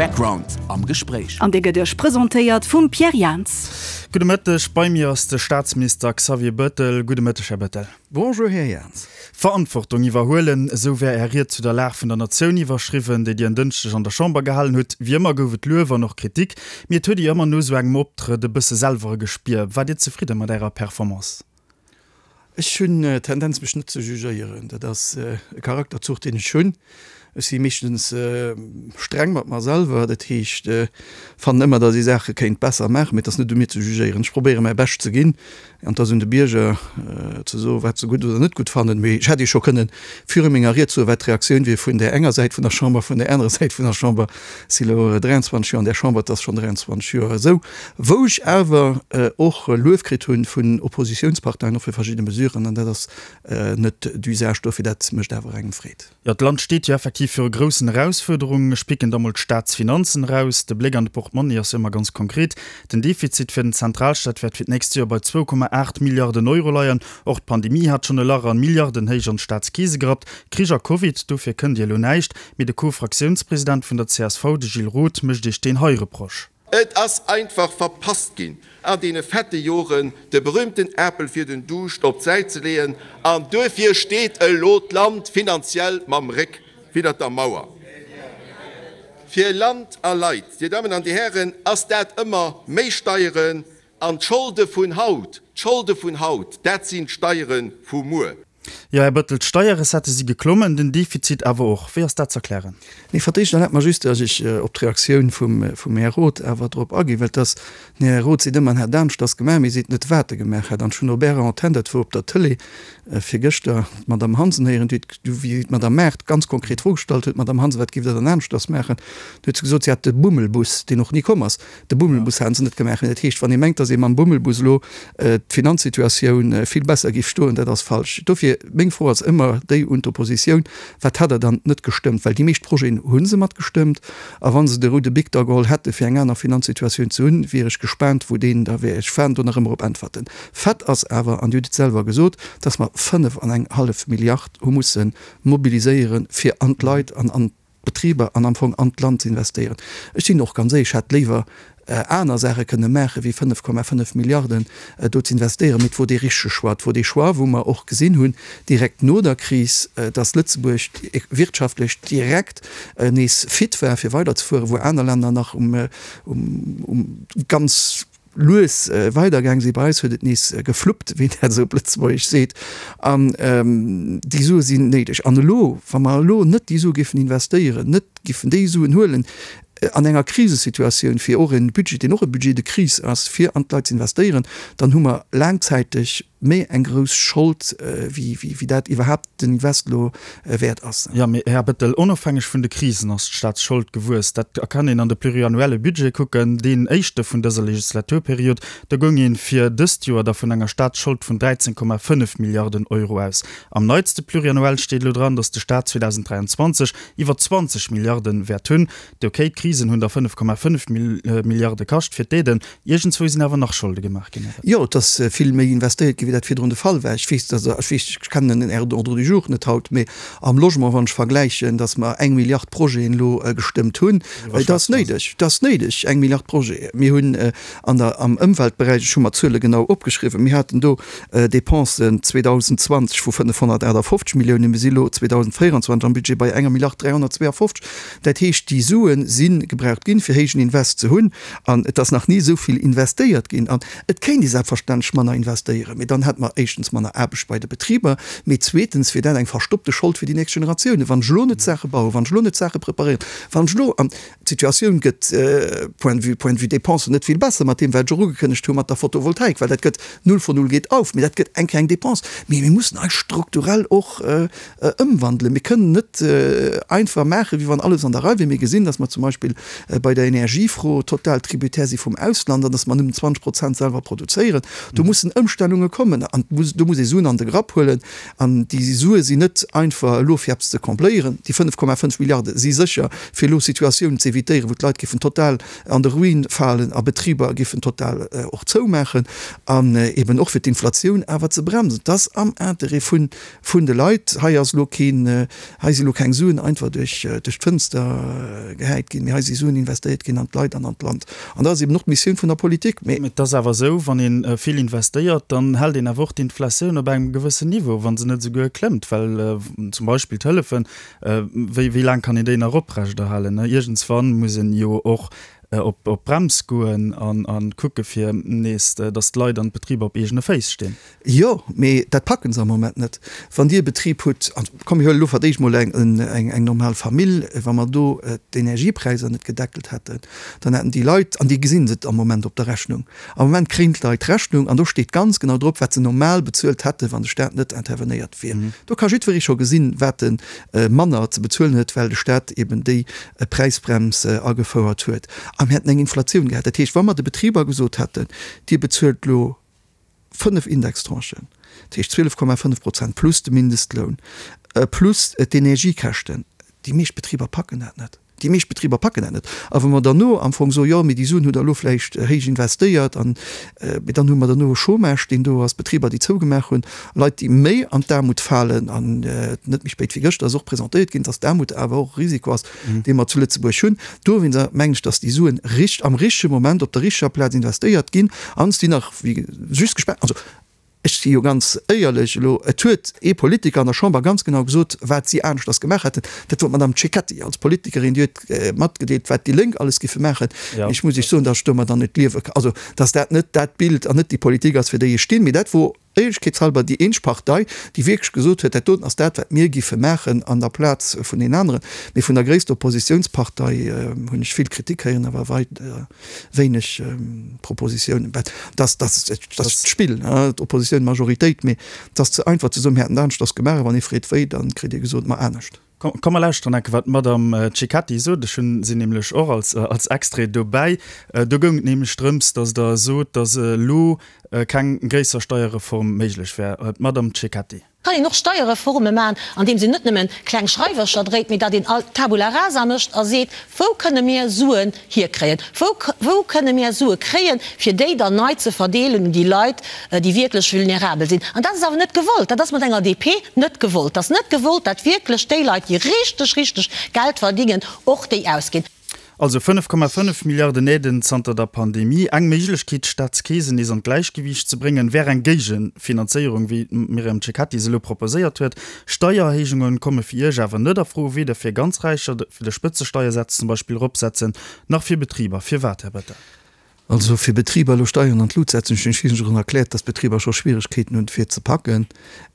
Background am Gespréich. An dee gëtt Iech presentéiert vum Pierre Jans. Gudde Mëtteg, bei mir ass de Staatsminister Xavier Bettel. Gudde Mëtteg, Här Bettel. Bonjour, Här Jans. Verantwortung iwwerhuelen, esou wär Är Ried zu der Lag vun der Natioun iwwerschriwwen, déi Dir en Dënschdeg an der Chamber gehalen hutt. Wéi ëmmer gouf et Luef an och Kritik, mee et huet ee jo ëmmer no esou engem Optrëtt e bësse selwer e Gespier. Waart Dir zefridde mat Ärer Performance? Ech hunn d'Tendenz mech net ze jugéieren. Dat ass e Charakterzuch deen ech hunn. Ech si meeschtens streng mat mer selwer, dat heescht fannen ëmmer, datt ee Saache kéint besser maachen, mee et ass net u mir ze jugéieren. Ech probéiere mäi Bescht ze ginn an et ass un de Bierger ze soen, wat se gutt oder net gutt fannen. Mee ech hätt Iech scho kënnen viru menger Ried soen, wat d'Reaktioun wier vun där enger Säit vun der Chamber, vun där anerer Säit vun der Chamber. Ech si lo 23 Joer an där Chamber, et ass schonn 23 Joer esou. Wou ech awer och Luef kritt hunn vun Oppositiounsparteien, och fir verschidde Mesuren, an dat ass net d'usage dofir, dat mécht awer engem Freed. Jo, d'Land steet jo effektiv viru groussen Erausfuerderungen. Ech picken da mol d'Staatsfinanzen eraus. De Bléck an de Portmonni ass jo ëmmer ganz konkret. Den Defizit fir den Zentralstaat wäert fir d'nächst Joer bei 2,8 Milliarden Euro leien. Och d'Pandemie hat schonn e Lach an Milliardenhéich an d'Staatskeese gerappt. Krich a Covid, dofir kënnt Dir elo näischt. Mee de Co-Fraktiounspresident vun der csv, de Gilles Roth, mécht Iech deen hei Reproche. Et ass einfach verpasst ginn, an deene fette Joren de berühmten Apel fir den Duuscht op d'Säit ze leeën, an duerfir steet elo d'Land finanziell mam Réck widdert der Mauer. Fir Land a Leit, Dir Dammen an Dir Hären, ass dat ëmmer méi Steieren an d'Scholde vun haut, d'Scholde vun haut, dat sinn d'Steiere vu muer. Jo, Här Bettel, d'Steierrecettë si geklommen, den Defizit awer och. Wéi ass dat z'erklären? Nee, fir d'éischt erlaabt mer just, datt ech op d'Reaktioun vum, vum Här Roth awer drop aginn, well et ass, den Här Roth seet ëmmer, en hätt aneschters gemaach, mee seet net, wat e gemaach hätt. An ech hunn op Ärer Antenn, dat wor op der Tëlee virgëschter, d'Madame Hansen héieren, déi huet, wéi d'Madame Maart ganz konkret d'Fro gestallt huet, Madame Hansen, wat giff Der dann aneschters maachen? Du huet se gesot, si hätt de Bummelbus, deen och ni komm ass, De Bummelbus haten se net gemaach. Dat heescht, wann ee mengt, datt ee mam Bummelbus elo d'Finanzsituatioun vill besser géif stoen, dat ass falsch. Dofir, meng Fro ass ëmmer déi un d'Oppositioun, Wat hat Der dann net gestëmmt? Well déi meescht Projeten hu se matgestëmmt. A wa se de roude Bic da geholl hätte fir eng aner Finanzsituatioun ze hunn, wier ech gespaant, wou deen da wär. Ech waarden do nach ëmmer op Äntwerten. Fait ass awer, an Dir hutt et selwer gesot, datt mer 5 an eng hallef Milliard hu musse mobiliséieren, fir an d'Leit an an Betriber an am Fong an d'Land ze investéieren. Ech sinn och ganz éierlech, ech hätt léiwer aner Saache kënne maache wéi 5,5 Milliarden do ze investéieren. Mee et wor dee richtege Choix. Et wor dee Choix, wou mer och gesinn hunn, direkt no der Kris, dass Lëtzebuerg wirtschaftlech direkt nees fit war fir weiderzefueren, wou aner Länner nach um ganz lues weidergaang sinn. Bei eis huet et nees gefluppt, wéi een dat esou op Lëtzebuergesch seet. An déi Sue sinn néideg. An elo, wa mer elo net déi Sue géifen investéieren, net géifen déi Suen huelen an enger Krisesituatioun, fir och e Budget, deen och e Budget de crise ass, fir an d'Leit ze investéieren, dann hu mer laangzäiteg méi eng grouss Schold, wéi dat iwwerhaapt den Invest elo wäert ass. Jo, mee Här Bettel, onofhängeg vun de Krisen ass d'Staatsschold gewuess. Dat kann een an de pluriannuelle Budget kucken, deen éischte vun dëser Legislaturperiod. Do goung ee fir dëst Joer da vun enger Staatsschold vun 13,5 Milliarden Euro aus. Am neitste Pluriannuel steet elo dran, datt de Staat 2023 iwwer 20 Milliarden wäert hunn. Ok, d'Krisen hunn der 5,5 Milliarde kascht fir d'Aiden. Iergendzwou sinn awer nach Scholde gemaach ginn, oder? Jo, et ass vill méi investéiert ginn, wéi dat virdrun de Fall war. Ech weess, dass, ech weess, ech kennen den Ordre du jour net haut, mee am Logement, wann ech vergläichen, dass mer eng Milliard Projeten elo gestëmmt hunn, et ass néideg, et ass néideg, eng Milliard Projeten. Mir hunn an der, am Ëmweltberäich, ech hu mer d'Zuele genau opgeschriwwen, mir haten do Dépensen 2020 vu 558 Milliounen, mir si elo 2024 am Budget bei enger Milliard 352. Dat heescht, déi Sue si gebraucht ginn, fir héijen Invest ze hunn. An et ass nach ni esou vill investéiert ginn. An et kéint ee selbstverständlech manner investéieren, mee dann hätte mer éischtens manner Aarbecht bei de Betriber, mee zweetens wier dat eng verstoppte Schold fir déi nächst Generatiounen. Wann ech elo net Saache bauen, wann ech elo net Saache preparéieren, wann ech elo, an d'Situatioun gëtt point de vue, point de vue Dépensen net vill besser mat deem, wat ech och ugekënnegt hu mat der Photovoltaik, well dat gëtt null von null geht auf, mee dat gëtt eng kleng Dépense. Mee mir mussen eis strukturell och ëmwandelen. Mir kënnen net einfach maachen, wéi wann alles an der Rei wier. Mir gesinn, datt mer zum Beispill bei der Energiefro total tributaire si vum Ausland an datt mer nëmmen 20 Prozent selwer produzéieren. Do mussen Ëmstellunge kommen. kommen an do muss ee Suen an de Grapp huelen. An déi Sue sinn net einfach elo fir eppes ze combléieren. Déi 5,5 Milliarde si sécher fir elo Situatiounen ze évitéieren, wou d'Leit géifen total an de Ruin falen a Betriber géifen total och zoumaachen an eben och fir d'Inflatioun awer ze bremsen. Et ass am Interêt vun vun de Leit. Hei ass elo keen, hei si elo keng Suen einfach duerch duerch d'Fënster gehäit ginn, mee hei si Suen investéiert ginn an d'Leit an an d'Land. An dat ass eben och d'Missioun vun der Politik. Mee. Et ass awer esou, wann ee vill investéiert, dann hält een awer och d'Inflatioun op engem gewëssen Niveau, wa se net esouguer klëmmt, well zum Beispill d'Hëllefen, wéi wéi laang kann een déi nach oprechterhalen? Iergendswann muss een jo och op d'Brems goen an kucke fir nees, datt d'Leit an d'Betriber op eegene Féiss stinn. Jo, mee dat packen se am Moment net. Wann Dir e Betrib hutt, an komm mir huelen elo fir d'éischt mol eng, eng normal Famill, wa mer do d'Energiepräisser net gedeckelt hätten, dann hätten déi Leit, an déi gesinn et am Moment op der Rechnung, am Moment kréien d'Leit d'Rechnung an do steet ganz genau drop, wat se normal bezuelt hätten, wann de Staat net intervenéiert wier. Do ka jiddweree scho gesinn, wat e manner ze bezuelen huet, well de Staat eben déi Präisbrems agefouert huet. A mir hätten eng Inflatioun gehat. Dat heescht, wa mer de Betriber gesot hätten, Dir bezuelt elo 5 Indextranchen, dat heescht 12,5 Prozent plus de Mindestloun, plus d'Energiekäschten. Déi meescht Betriber packen dat net. Déi meescht Betriber packen dat net. A wa mer derno am Fong soen, jo, mee déi Suen hutt Der elo vläicht héich investéiert an, mee dann hu mer derno e Chômage, deen do ass, Betriber, déi zougemaach hunn, Leit, déi méi an d'Aarmut falen. An net méi spéit wéi gëschter ass och presentéiert ginn, dass d'Aarmut awer och e Risiko ass, dee mer zu Lëtzebuerg hunn. Dowéinster mengen ech, dass déi Suen richt am richtege Moment op der richteger Plaz investéiert ginn an si nach wéi just gespaart. Also ech si jo ganz éierlech elo, et huet ee Politiker an der Chamber ganz genau gesot, wat si aneschters gemaach hätten. Dat wor d'Madame Cecchetti als Politikerin, déi huet matgedeelt, wat déi Lénk alles giffe maachen. Ech muss Iech soen, dass ech domadder net liewe kann, also dass dat net dat Bild an net déi Politik ass, fir déi ech stinn. Mee dat wor Éierlechkeetshalber déi eenzeg Partei, déi wierklech gesot huet, dat doten ass dat, wat mir giffe maachen an der Plaz vun deenen aneren. Mee vun der gréisster Oppositiounspartei hunn ech vill Kritik héieren, awer weider wéineg Propositiounen. Dat ass d'Spill, d'Oppositioun, d'Majoritéit. Mee et ass ze einfach ze soen, mir hätten et aneschters gemaach. A wann ee freet wéi, da kritt ee gesot, ma anescht. Komm mer lauschteren enke wat d'Madame Cecchetti sot. Ech hunn si nämlech och als als Extrait dobäi. Do goung et nämlech drëms, datt Der sot, datt elo keng gréisser Steierreform méiglech wär. D'Madame Cecchetti. Kann een och Steierreforme maachen, andeems een net nëmmen kleng Schreiwercher dréit, mee datt een all Tabula rasa mécht a seet, Wou kënne mir Suen hierkréien? Wou, wou kënne mir Sue kréien, fir déi dann nei ze verdeelen un déi Leit, déi wierklech vulnerabel sinn? An dat ass awer net gewollt. Dat ass mat enger DP net gewollt. Dat ass net gewollt, dat wierklech déi Leit, déi richteg, richteg Geld verdingen, och déi ausginn. Also 5,5 Milliarden Aiden zanter der Pandemie. Eng Méiglechkeet, d'Staatskeesen nees an d'Gläichgewiicht ze bréngen, wär eng Géigefinanzéierung, wéi d'Myriam Cecchetti se elo proposéiert huet. Steiererhéijunge komme fir Iech awer net a Fro, weder fir ganz Räicher, fir de Spëtzesteiersaz zum Beispill eropsetzen, nach fir Betriber. Firwat, Här Bettel? Also fir Betriber elo Steieren an d'Lut setzen, ech hunn Iech schonn erkläert, dass d'Betriber scho Schwieregkeeten hunn fir ze packen,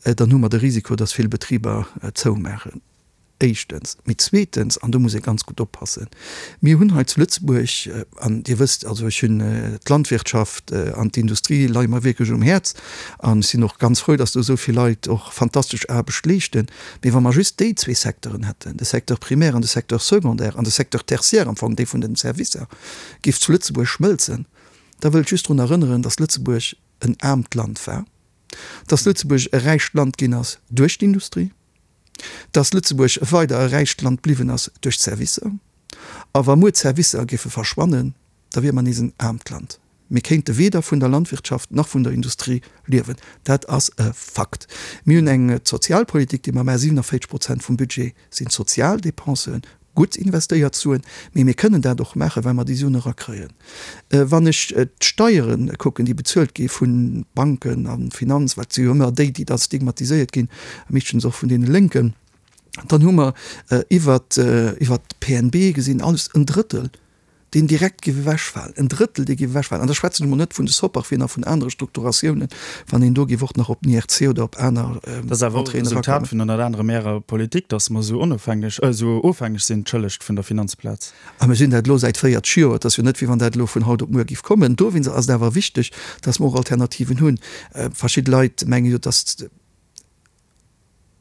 dann hu mer de Risiko, dass vill Betriber zoumaachen. Éischtens. Mee zweetens, an do muss ee ganz gutt oppassen, mir hunn hei zu Lëtzebuerg, an Dir wësst, also ech hunn d'Landwirtschaft an d'Industrie leie mer wierklech um Häerz an ech sinn och ganz frou, dass do esou vill Leit och fantastesch Aarbecht leeschten, mee wa mer just déi zwee Secteuren hätten, de Secteur primaire an de Secteur secondaire an de Secteur tertiaire am Fong, dee vun den Servicer, géif zu Lëtzebuerg schmëlzen, da wëll ech just drun erënneren, dass Lëtzebuerg en aarmt Land war, dass Lëtzebuerg e räicht Land ginn ass duerch d'Industrie, dass Lëtzebuerg weider e räicht Land bliwwen ass duerch d'Servicer. A wa muer d'Servicer géife verschwannen, da wiere mer nees en aarmt Land. Mir kéinte weder vun der Landwirtschaft nach vun der Industrie liewen. Dat ass e Fakt. Mir hunn eng Sozialpolitik, déi mer maachen. 47 Prozent vum Budget sinn Sozialdepensen, gutt investéiert Suen. Mee mir kënnen dat och maachen, well mer déi Suen erakréien. Wann ech d'Steiere kucken, déi bezuelt gi vu Banken a Finanz, wat si jo ëmmer déi, déi da stigmatiséiert ginn, meeschtens och vun deene Lénken, dann hu mer iwwert d'PNB gesinn alles en Drëttel deen direkt géif ewechfalen, en Drëttel, dee géif ewechfalen, an da schwätzen ech emol net vun de Soparfien a vun anere Strukturatiounen, wann een do géif och nach op den IRC oder op aner Dat ass awer och e Entréeën Resultat erakommen. vun ënnert anerem Ärer Politik, datt mer esou onofhängeg, esou ofhängeg sinn, entschëllegt, vun der Finanzplaz. A mir sinn dat elo säit 40 Joer. Et ass jo net, wéi wann dat elo vun haut op muer géif kommen. Dowéinst ass et awer wichteg, datt mer och Alternativen hunn. Verschidde Leit menge jo, datt.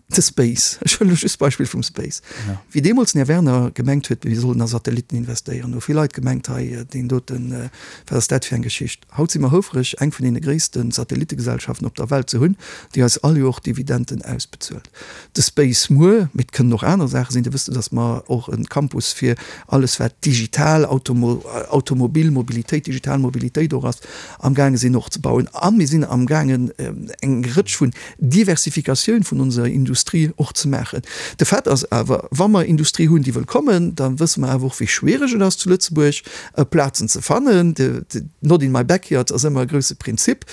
De Space, ech huelen elo just d'Beispill vum Space. Wéi deemools den Här Werner gemengt huet, mir sollen a Satellitten investéieren, hu vill Leit gemengt, hei deen doten, wat ass dat fir eng Geschicht? Haut si mer houfreg, eng vun deene gréisste Satellittegesellschaften op der Welt ze hunn, déi eis all Joer Dividenden ausbezuelt. De Space muer, mee et kënnen och aner Saache sinn, Dir wësst jo, datt mer och e Campus fir alles wat digital, Automobil, Mobilitéit, digital Mobilitéit och ass, amgaange sinn och ze bauen. A mir sinn amgaangen eng Rëtsch vun Diversifikatioun vun onser Industrie och ze maachen. De Fait ass awer, wa mer Industrie hunn, déi wëll kommen, da wësse mer awer och, wéi schwiereg et ass zu Lëtzebuerg Plazen ze fannen. Not in my backyard ass ëmmer e grouse Prinzip.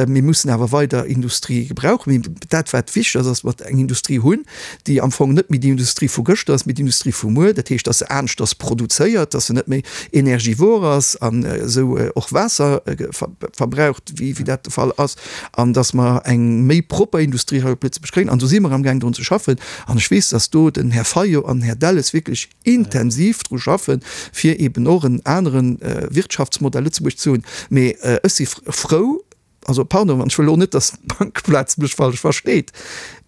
Mir mussen awer weider Industrie gebrauchen. Mee dat, wat wichteg ass, ass, datt mer eng Industrie hunn, déi am Fong net méi déi Industrie vu gëschter ass, mee d'Industrie vu muer. Dat heescht, datt se aneschters produzéiert, datt se net méi energivor ass an esou och Waasser verbraucht, wéi dat de Fall ass. an dass mer eng méi propper Industrie hei op Lëtzebuerg kréien. An do si mer amgaang drun ze schaffen. An ech weess, dass do den Här Fayot an den Här Delles wierklech intensiv dru schaffen, fir eben och en anere Wirtschaftsmodell Lëtzebuerg ze hunn. Mee ech si frou, also pardon, an ech wëll elo net, dass d'Bankeplaz mech falsch versteet,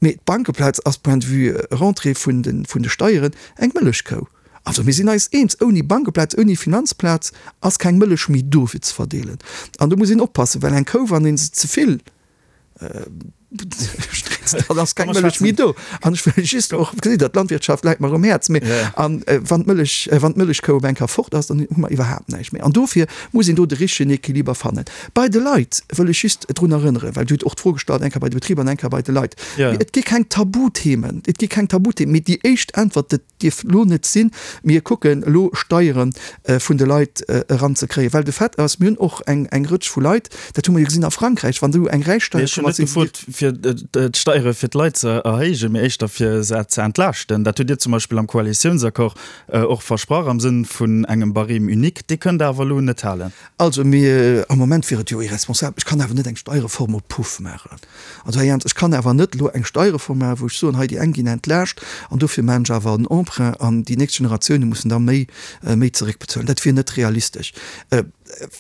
mee d'Bankeplaz ass point de vue Rentrée vun de Steieren eng Mëllechkou. Also mir sinn eis eens, ouni Bankeplaz, ouni Finanzplaz ass keng Mëllech méi do fir ze verdeelen. An do muss een oppassen, well eng Kou, wann ee se ze vill strézt, dann ass keng Mëllech méi do. An ech wëll just och, gesitt Der, d'Landwirtschaft läit mer um Häerz, mee an wann d'Mëllech, wann d'Mëllechkou op eng Kéier fort ass, dann hu mer iwwerhaapt näischt méi. An dofir muss een do de richtegen Equiliber fannen. Bei de Leit wëll ech just drun erënneren, well Dir hutt och d'Fro gestallt, eng Kéier bei de Betriber an eng Kéier bei de Leit, et gi keng Tabuthemen, et gi keng Tabuthemen, mee déi éischt Äntwert, dat dierf elo net sinn, mir kucken elo Steiere vun de Leit eranzekréien, well de Fait ass, mir hunn och eng eng Rëtsch vu Leit, dat hu mer jo gesinn a Frankräich, wann do eng Räichsteier komm ass, sinn se. Ech hunn net gefrot, fir d'Steiere fir d'Leit ze erhéijen, mee éischter fir se ze entlaaschten. Dat hutt Dir zum Beispill am Koalitiounsaccord och versprach am Sënn vun engem Barème unique. Dee kënnt Der awer elo net halen. Also mir, am Moment wier et jo irresponsabel, ech kann awer net eng Steierreform op Puff maachen. Also Här Jans, ech kann awer net elo eng Steierreform maachen, wou ech soen, hei déi eng ginn entlaascht an dofir maachen ech awer en Emprunt an déi nächst Generatioune mussen da méi, méi zeréckbezuelen. Dat wier net realistesch.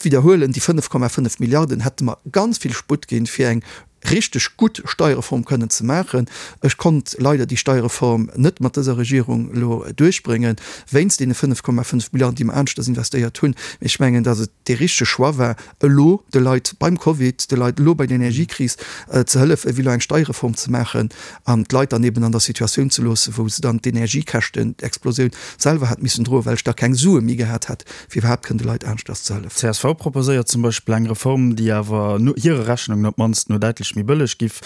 Widderhuelen, déi 5,5 Milliarden hätte mer ganz vill Sputt ginn, fir eng richteg gutt Steierreform kënnen ze maachen. Ech konnt leider déi Steierreform net mat dëser Regierung elo duerchbréngen, wéinst deene 5,5 Milliarden, déi mer aneschters investéiert hunn. Mee ech mengen, datt et dee richtege Choix war, elo de Leit beim Covid, de Leit elo bei der Energiekris ze hëllefen, ewéi elo eng Steierreform ze maachen an d'Leit dann eben an der Situatioun ze loossen, wou se dann d'Energiekäschten, d'Explosioun selwer hätt missen droen, well ech da keng Sue méi gehat hätt, fir iwwerhaapt kënnen de Leit aneschters ze hëllefen. Csv proposéiert zum Beispill eng Reform, déi awer no hire Rechnungen op d'mannst no däitlech méi bëlleg giff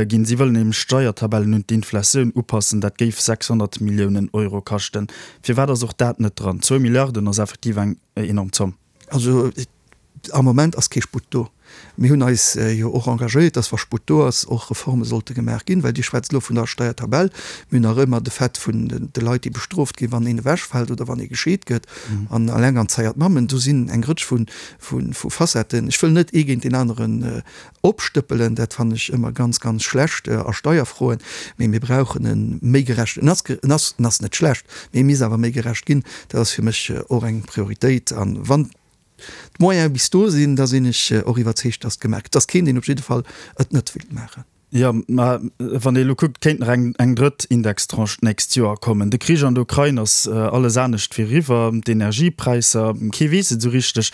ginn. Si wëllen nämlech d'Steiertabellen un d'Inflatioun upassen. Dat géif 600 Milliounen Euro kaschten. Firwat ass och dat net dran? Zwou Milliarden ass effektiv eng enorm Zomm. Also am Moment ass kee Sputt do. Mir hunn eis jo och engagéiert, dass wa Sputt do ass, och Reforme sollte gemaach ginn, well Dir schwätzt elo vun der Steiertabell. Mir hunn nach ëmmer de Fait vun de Leit, déi bestrooft ginn, wann een ewechfält oder wann ee gescheet gëtt an alenganzeiert Mammen. Do sinn eng Rëtsch vu Facetten. Ech wëll net ee géint deen aneren opstëppelen, dat fannen ech ëmmer ganz, ganz schlecht a Steierfroen, mee mir brauchen e méi gerechten, en ass, en ass, en ass net schlecht, mee e misst awer méi gerecht ginn. Dat ass fir mech och eng Prioritéit. A wann d'Moyene bis do sinn, da sinn ech och iwwerzeegt, dass et gemaach gëtt. Et ass keen, deen op jidde Fall et net wéilt maachen. Jo, mä wann ee elo kuckt, kéint nach eng eng drëtt Indextranche d'nächst Joer kommen. De Krich an der Ukrain ass alles anescht wéi eriwwer, d'Energiepräisser, kee weess et esou richteg.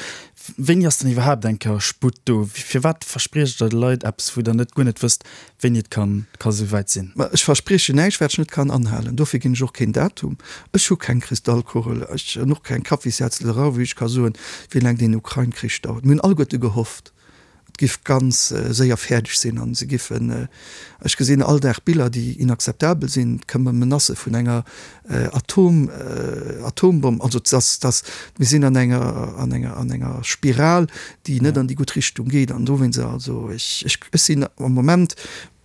Wéini ass dann iwwerhaapt eng Kéier Sputt do? Firwat verspriecht Der de Leit eppes, wou Der net guer net wësst, wéini et ka ka esou wäit sinn? Mä ech verspriechen näischt, wat ech net kann anhalen. Dofir ginn ech och keen Datum. Ech hu keng Kristallkugel, ech hunn och keng Kaffissetzlerei, wou ech ka soen, wéi laang deen Ukrain-Krich dauert. Mir hunn alleguerte gehofft, Et giff ganz séier fäerdeg sinn an se giffen, ech gesinn all Dag Biller déi inakzeptabel sinn, et këmmen Menacë vun enger Atom, Atombomm, also dass, dass mir sinn an enger, an enger, an enger Spiral déi net an déi gutt Richtung geet an dowéinst, also ech, ech, ech sinn am Moment,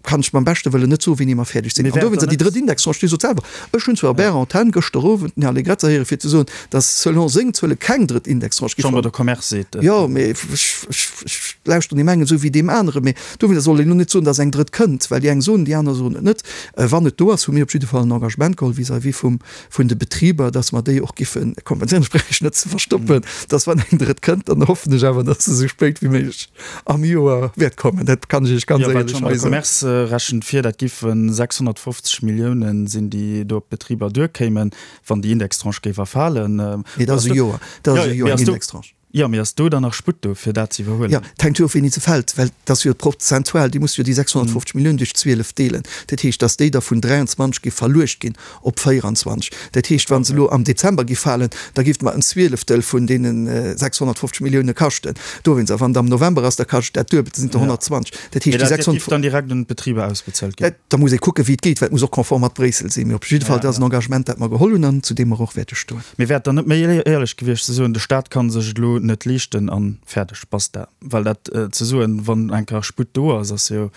kann ech beim beschte Wëllen net soen, wéini mer fäerdeg sinn. An dowéinst, déi drëtt Indextranche, Dir sot selwer, ech hunn zwar op Ärer Antenn gëschter Owend den Här Allegrezza héiere fir ze soen, datt selon seng Zuele keng drëtt Indextranche géif. D'Chambre de Commerce seet et. Jo, mee ech, ech, ech lauschteren deem engen esou wéi deem aneren. Mee dowéinst soll een elo net soen, datt eng drëtt kënnt, well déi eng soen, déi aner soen et net. Wann et do ass, hu mir op jidde Fall en Engagement geholl vis-à-vis vum, vun de Betriber, datt mer déi och giffe kompenséieren. Ech brauch Iech net ze verstoppen, datt wann eng drëtt kënnt, dann hoffen ech awer, datt se esou spéit wéi méiglech am Joer wäert kommen, dat kann ech Iech ganz éierlech hei soen. Jo, well d'Chambre de Commerce. rechent vir, dat giffe 650 Milliounen sinn, déi do op d'Betriber duerkéimen, wann déi Indextranche géif erfalen. Nee, dat ass e Joer. Dat ass e Joer, eng Indextranche. Jo, mee ass do dann nach Sputt do, fir dat ze iwwerhuelen? Jo, et hänkt jo of, wéini se fält, well et ass jo prozentual, Dir musst jo déi 650 Milliounen duerch 12 deelen. Dat heescht, datt déi da vun 23 géif verluecht ginn op 24. Dat heescht, wa se elo am Dezember géif falen, da géif et mer en Zwieleftel vun deene 650 Millioune kaschten. Dowéinst, a wann et am November ass, da kascht et dat Duebelt, da sinn et der 120. Dat heescht, déi 650. Dat géif dann direkt un d'Betriber ausbezuelt ginn? Da muss ee kucken, wéi et geet, well et muss och konform mat Bréissel sinn. Mee op jidde Fall, dat ass en Engagement, dat mer geholl hunn an zu deem mer och wäerte stoen. Mee wär et dann net méi éierlech gewiescht ze soen, de Staat ka sech et elo net leeschten an fäerdeg, basta? Well dat ze soen, wann eng Kéier Sputt do ass, ass jo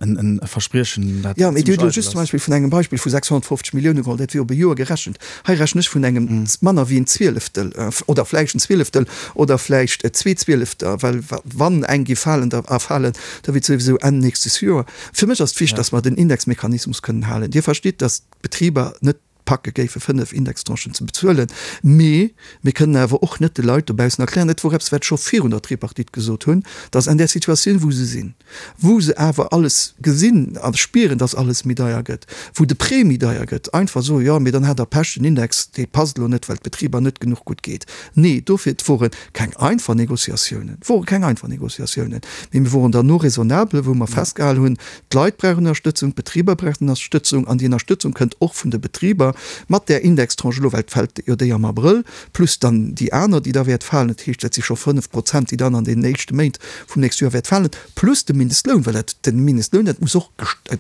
e Verspriechen, dat Jo, mee Dir hutt elo just zum Beispill vun engem Beispill vu 650 Millioune geholl, dat wier op e Joer gerechent. Hei rechnen ech vun engem manner wéi en Zwieleftel oder vläicht en Zwieleftel oder vläicht zwee Zwielefter, well wann eng géif falen, da erfalen, da wier et souwisou Enn nächstes Joer. Fir mech ass et wichteg, datt mer den Indexmechanismus kënnen halen. Dir verstitt, datt d'Betriber net packe géife 5 Indextranchen ze bezuelen. Mee mir kënnen awer och net de Leit dobaussen erklären, dat wor eppes wat ech scho virun der Tripartite gesot hunn, datt an där Situatioun wou se sinn, wou se awer alles gesinn a spieren, datt alles méi deier gëtt, wou de Prêt méi deier gëtt, einfach soen, jo mee dann hat Der Pech, den Index dee passt elo net, well d'Betriber net genuch gutt geet. Nee, dofir, et wore keng einfach Négociatiounen, et wore keng einfach Négociatiounen, mee mir woren derno raisonnable, wou mer festgehalen hunn, D'Leit brauchen Ënnerstëtzung, d'Betriber brauchen Ënnerstëtzung an déi Ënnerstëtzung kënnt och vun de Betriber mat där Indextranche elo, well et fält jo déi am Abrëll, plus dann déi aner, déi da wäert falen. Dat heescht, dat si scho 5 Prozent, déi dann an deenen éischte Méint vum nächste Joer wäert falen, plus de Mindestloun, well dat, de Mindestloun, dat muss och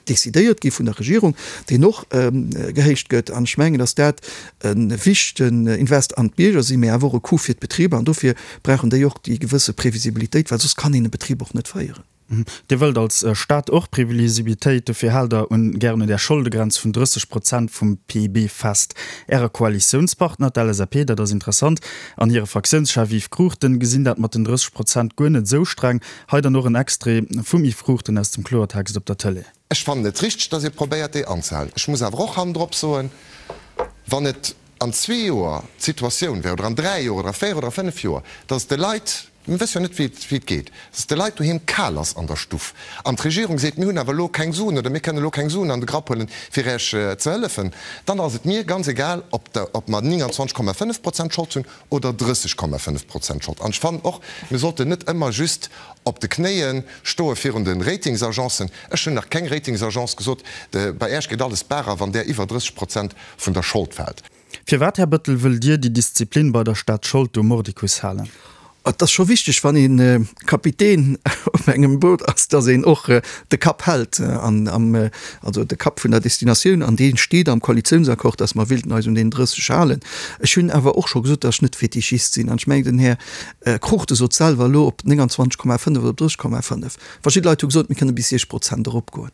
decidéiert gi vun der Regierung, deen och gehéicht gëtt. An ech mengen, datt dat e wichtegen Invest an d'Bierger sinn, mä awer och e Coup fir d'Betriber. An dofir brauchen déi och déi gewësse Previsibilitéit, well soss kann een e Betrib och net féieren. Dir wëllt als Staat och Previsibilitéit, dofir haalt Der un gären un där Scholdegrenz vun 30 Prozent vum PIB fest. Äre Koalitiounspartner, d'LSAP, dat ass interessant, an hire Fraktiounschef Yves Cruchten gesinn dat mat den 30 Prozent guer net esou streng. Hei dann och en Extrait vum Yves Cruchten aus dem Kloertext op der Tëlee. Ech fannen et richteg, datt ee probéiert, déi anzehalen. Ech muss awer och hannendrop soen, wann et an zwee Joer d'Situatioun wär, oder an dräi Joer oder a véier oder a fënnef Joer, datt de Leit, mir wësse jo net, wéi et geet, datt de Leit doheem kal ass an der Stuff an d'Regierung seet, mir hunn awer elo keng Suen oder mir kënnen elo keng Suen an de Grapp huelen, fir Iech ze hëllefen, dann ass et mir ganz egal, ob mer 29,5 Prozent Schold hunn oder 30,5 Prozent Schold. An ech fannen och, mir sollten net ëmmer just op de Knéie stoe virun de Ratingsagencen. Ech hunn nach keng Ratingsagence gesot, bei Äech geet alles barer, wann där iwwer 30 Prozent vun der Schold fält. Firwat, Här Bettel, wëllt Dir déi Disziplin bei der Staatsschold do mordicus halen? Et ass scho wichteg, wann ee Kapitän op engem Boot ass, datt een och de Kapp hält, an am, also de Kapp vun der Destinatioun, an dee steet am Koalitiounsaccord, datt mer wéilten eis un deen 30 halen. Ech hunn awer och scho gesot, datt ech net Fetischist sinn, an ech mengen, den Här Cruchten sot selwer elo, op 29,5 oder op 30,5. Verschidde Leit hu gesot, mir kënne bis 6 Prozent eropgoen.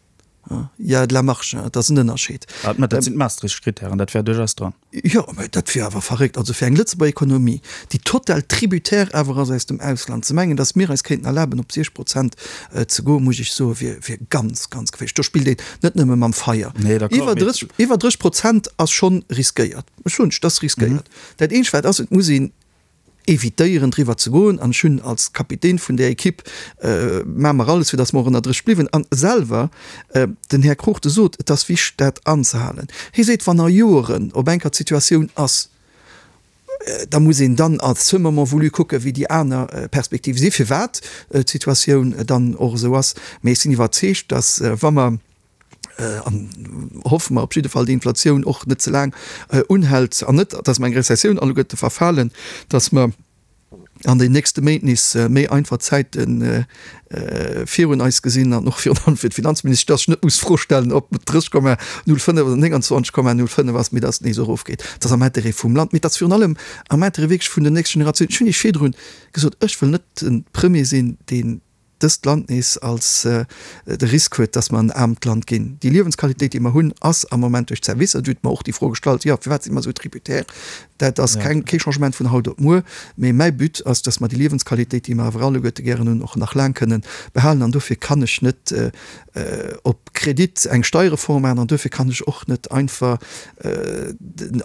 Il y a de la marge, dat ass en Ënnerscheed. Mä dat sinn d'Maastricht-Kritären, dat wär duerchaus dran. Jo, mä dat wier awer verréckt. Also fir eng Lëtzebuerger Ekonomie, déi total tributaire awer ass aus dem Ausland, ze mengen, datt mir eis kéinten erlaben, op 6 Prozent ze goen, muss ech soen, wier, wier ganz, ganz geféierlech. Do spillt een net nëmme mam Feier. Nee, d'accord, Iwwer mee. 30, iwwer 30 Prozent ass schonn riskéiert. Ech soen lech, dat ass riskéiert. Dat eenzegt wat ass, et muss een evitéieren driwwer ze goen an ech hunn als Kapitän vun där Equipe maache mer alles fir datt mer och ënner 30 bliwen an selwer den Här Cruchten sot et ass wichteg dat anzehalen. Hie seet wann a Joeren op eng Kéier d'Situatioun ass, da muss een dann à ce moment voulu kucke wéi déi aner Perspektive si firwat d'Situatioun dann och esou ass. Mee ech sinn iwwerzeegt, datt wa mer an hoffe mer op jidde Fall, déi Inflatioun och net ze laang unhält an net, dass mer eng Rezessioun alleguerte verfalen, dass mer an den nächste Méint nees méi einfach Zäite virun eis gesinn an och virun allem fir d'Finanzministesch, dass ech net muss d'Fro stellen, ob et 30,05 oder 29,05 ass, mee dass et nees erofgeet. Dat ass am Intérêt vum Land, mee et ass virun allem am Intérêt wierklech vun den nächste Generatiounen. Ech hunn Iech virdrun gesot, ech wëll net de Premier sinn, deen dëst Land nees als de Risk huet, dass mer en aarmt Land ginn. Déi Liewensqualitéit, déi mer hunn, ass am Moment duerch d'Servicer, Dir hutt mer och déi Fro gestallt, jo, firwat si mer esou tributaire? Dat ass keng, kee Changement vun haut op muer, mee mäi But ass, dass mer déi Liewensqualitéit, déi mer awer alleguerte gären hunn, och nach laang kënnen behalen. An dofir kann ech net op Kredit eng Steierreform maachen an dofir kann ech och net einfach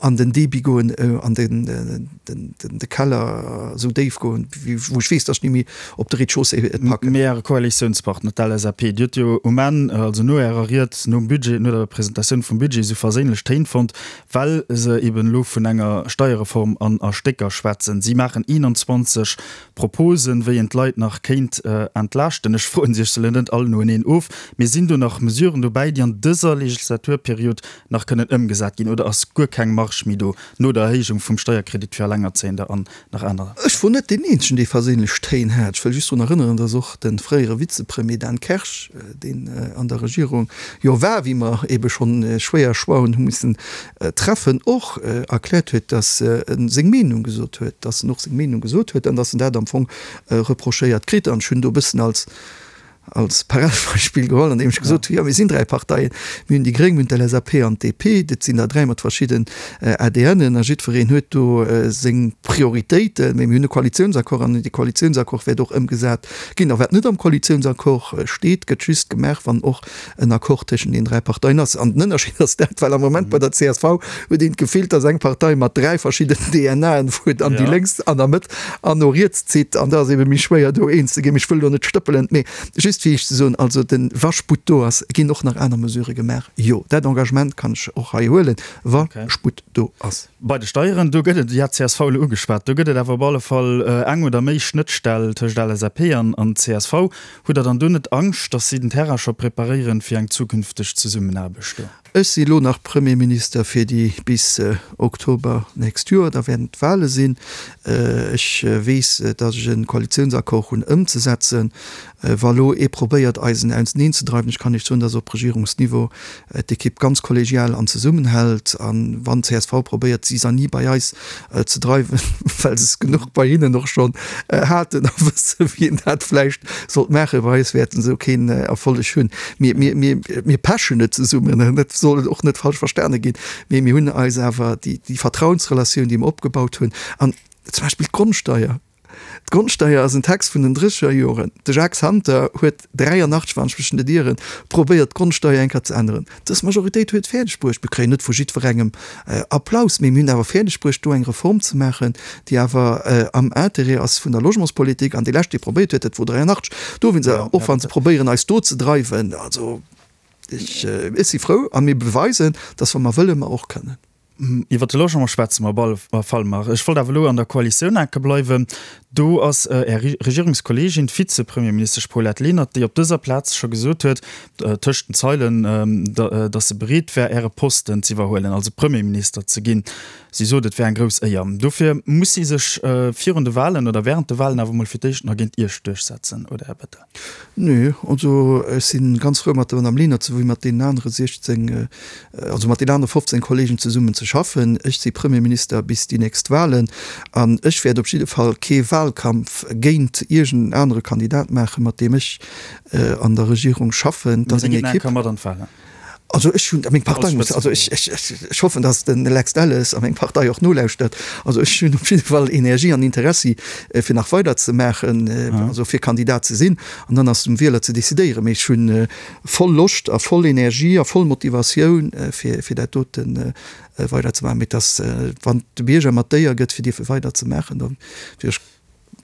an den Débit goen, an de Keller esou déif goen, wou ech weess, datt ech ni méi op de Rez-de-chaussée et packen. Mee. Mee Äre Koalitiounspartner, d'LSAP, déi huet jo um Enn, also no Ärer Ried, nom Budget, no der Presentatioun vum Budget, esou verséinlech Téin fonnt, well se eben elo vun enger Steierreform an a Stécker schwätzen. Si maachen 21 Proposen, wéi een d'Leit nach kéint entlaaschten. Ech froen se Iech se elo net all noeneen of, mee sinn do nach Mesuren dobäi, déi an dëser Legislaturperiod nach kënnen ëmgesat ginn, oder ass guer keng Marge méi do no der Erhéijung vum Steierkredit fir Allengerzéiender an nach aner. Ech wor net deen eenzegen, dee verséinlech Téin hat. Ech wëll just drun erënneren, dass och de fréiere Vizepremier Dan Kersch, deen an der Regierung jo war, wéi mer ebe schonn schwéier Choixen hu missen treffen, och erkläert huet, dass e seng Meenung gesot huet, dass en och seng Meenung gesot huet an dass en dat am Fong reprochéiert kritt. An ech hunn do e bëssen als als Paradebeispill geholl, an deem ech gesot hunn, jo mir sinn 3 Parteien, mir hunn déi Gréng, mir hunn d'LSAP an d'DP, dat sinn der 3 mat verschidden ADNen a jiddwereen huet do seng Prioritéiten, mee mir hunn e Koalitiounsaccord an dee Koalitiounsaccord wäert och ëmgesat ginn. A wat net am Koalitiounsaccord steet, gëtt just gemaach, wann och en Accord tëschent den 3 Parteien ass. An den Ënnerscheed ass dat, well am Moment bei der csv huet een d'Gefill, dass eng Partei mat 3 verschidden DNAen fuert an déi lénks an der Mëtt an no riets zitt an da ass ebe méi schwéier do eens ze ginn. Ech wëll elo net stëppelen, mee just fir Iech ze soen, also de wa Sputt do ass, ginn och nach aner Mesurë gemaach. Jo, dat Engagement kann ech och hei huelen, wa Sputt do ass. Bei de Steieren, do gëtt et, Dir hat csv elo ugeschwat, do gëtt et awer op alle Fall eng oder méi Schnëttstell tëscht LSAP an csv. Hutt Der dann do net Angscht, datt si den Terrain scho preparéieren fir eng zukünfteg Zesummenaarbecht do? Ech si elo nach Premierminister fir déi bis Oktober nächst Joer, da wäerten d'Wahle sinn. Ech weess, datt ech e Koalitiounsaccord hunn ëmzesetzen. Wa lo ee probéiert eis en auseneen ze dreiwen, ech kann Iech soen, datt op Regierungsniveau d'Ekipp ganz kollegial an zesummenhält. A wann csv probéiert Zizanie bei eis ze dreiwen, well se es genuch bei hinnen och schonn haten a wësse wéi een dat vläicht sollt maachen, bei eis wäerten se keen Erfolleg hunn. Mir, mir, mir, mir pechen net zesummen, dat soll och net falsch verstane ginn, mee mir hunn eis awer déi, déi Vertrauensrelatioun, déi mer opgebaut hunn, an zum Beispill d'Grondsteier. D'Grondsteier ass en Text vun den drécheger Joren. De Jacques Santer huet 83, wann ech mech net ieren, probéiert d'Grondsteier eng Kéier ze änneren. Dës Majoritéit huet et fäerdeg bruecht. Mir kréien net vu jiddwerengem Applaus, mee mir hunn awer fäerdeg bruecht, do eng Reform ze maachen, déi awer am Intérêt ass vun der Logementspolitik. An dee lescht, dee probéiert huet, dat wor 83. Do wéinst, och wa se probéieren, eis do ze dreiwen, also ech si frou a mir beweisen, dass wa mer wëllen, mer och kënnen. Iwwer de Logement schwätze mer op alle Fall nach. Ech wollt awer elo an der Koalitioun enke bleiwen. Do ass Är Regierungskolleegin, d'Vizepremierministesch Paulette Lenert, déi op dëser Plaz scho gesot huet, tëscht den Zeilen, datt se bereet wär, Äre Posten z'iwwerhuelen, also Premierminister ze ginn. Si sot, et wär eng grouss Éier. Dofir muss si sech virun de Walen oder wärend de Walen awer mol fir d'éischt nach géint Iech duerchsetzen, oder, Här Bettel? Nö, also ech si ganz frou mat der Madame Lenert souwéi mat deenen anere 16, also mat deenen anere 15 Kollegen zesummen ze schaffen. Ech si Premierminister bis déi nächst Wahlen an ech wäert op jidde Fall kee Wahlkampf géint iergend en anere Kandidat maachen, mat deem ech an der Regierung schaffen. Dat ass eng Equipe. Mat an d'Wahlen? Also ech hunn, meng Partei muss, also ech, ech, ech hoffen, datt den Lex Delles a meng Partei och nolauschtert. Also ech hunn op jidde Fall Energie an Interessi fir nach weider ze maachen, also fir Kandidat ze sinn. An dann ass et um Wieler ze decidéieren. Mee ech hu voll Loscht a voll Energie a voll Motivatioun fir, fir dat dote weider ze maachen. Mee et ass, wann de Bierger mer d'Éier gëtt fir dierfe weider ze maachen, da wier ech,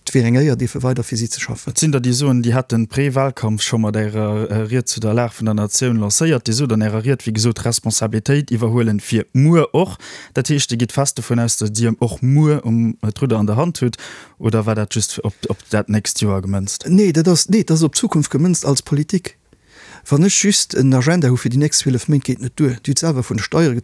Et wier eng Éier, dierfe weider fir si ze schaffen. Et sinn der, déi soen, Dir hätt den Pré-Wahlkampf scho mat Ärer Ried zu der Lag vun der Natioun lancéiert. Dir sot an Ärer Ried, wéi gesot, Responsabilitéit iwwerhuelen fir muer och. Dat heescht, Dir gitt fest dovun aus, datt Dir och muer um d'Rudder an der Hand hutt, oder war dat just op dat nächst Joer gemënzt? Nee, dat ass, nee, dat ass op d'Zukunft gemënzt als Politik. Wann ech just en Agenda hu fir déi nächst 12 Méint, geet net duer. Dir hutt selwer vun de Steiere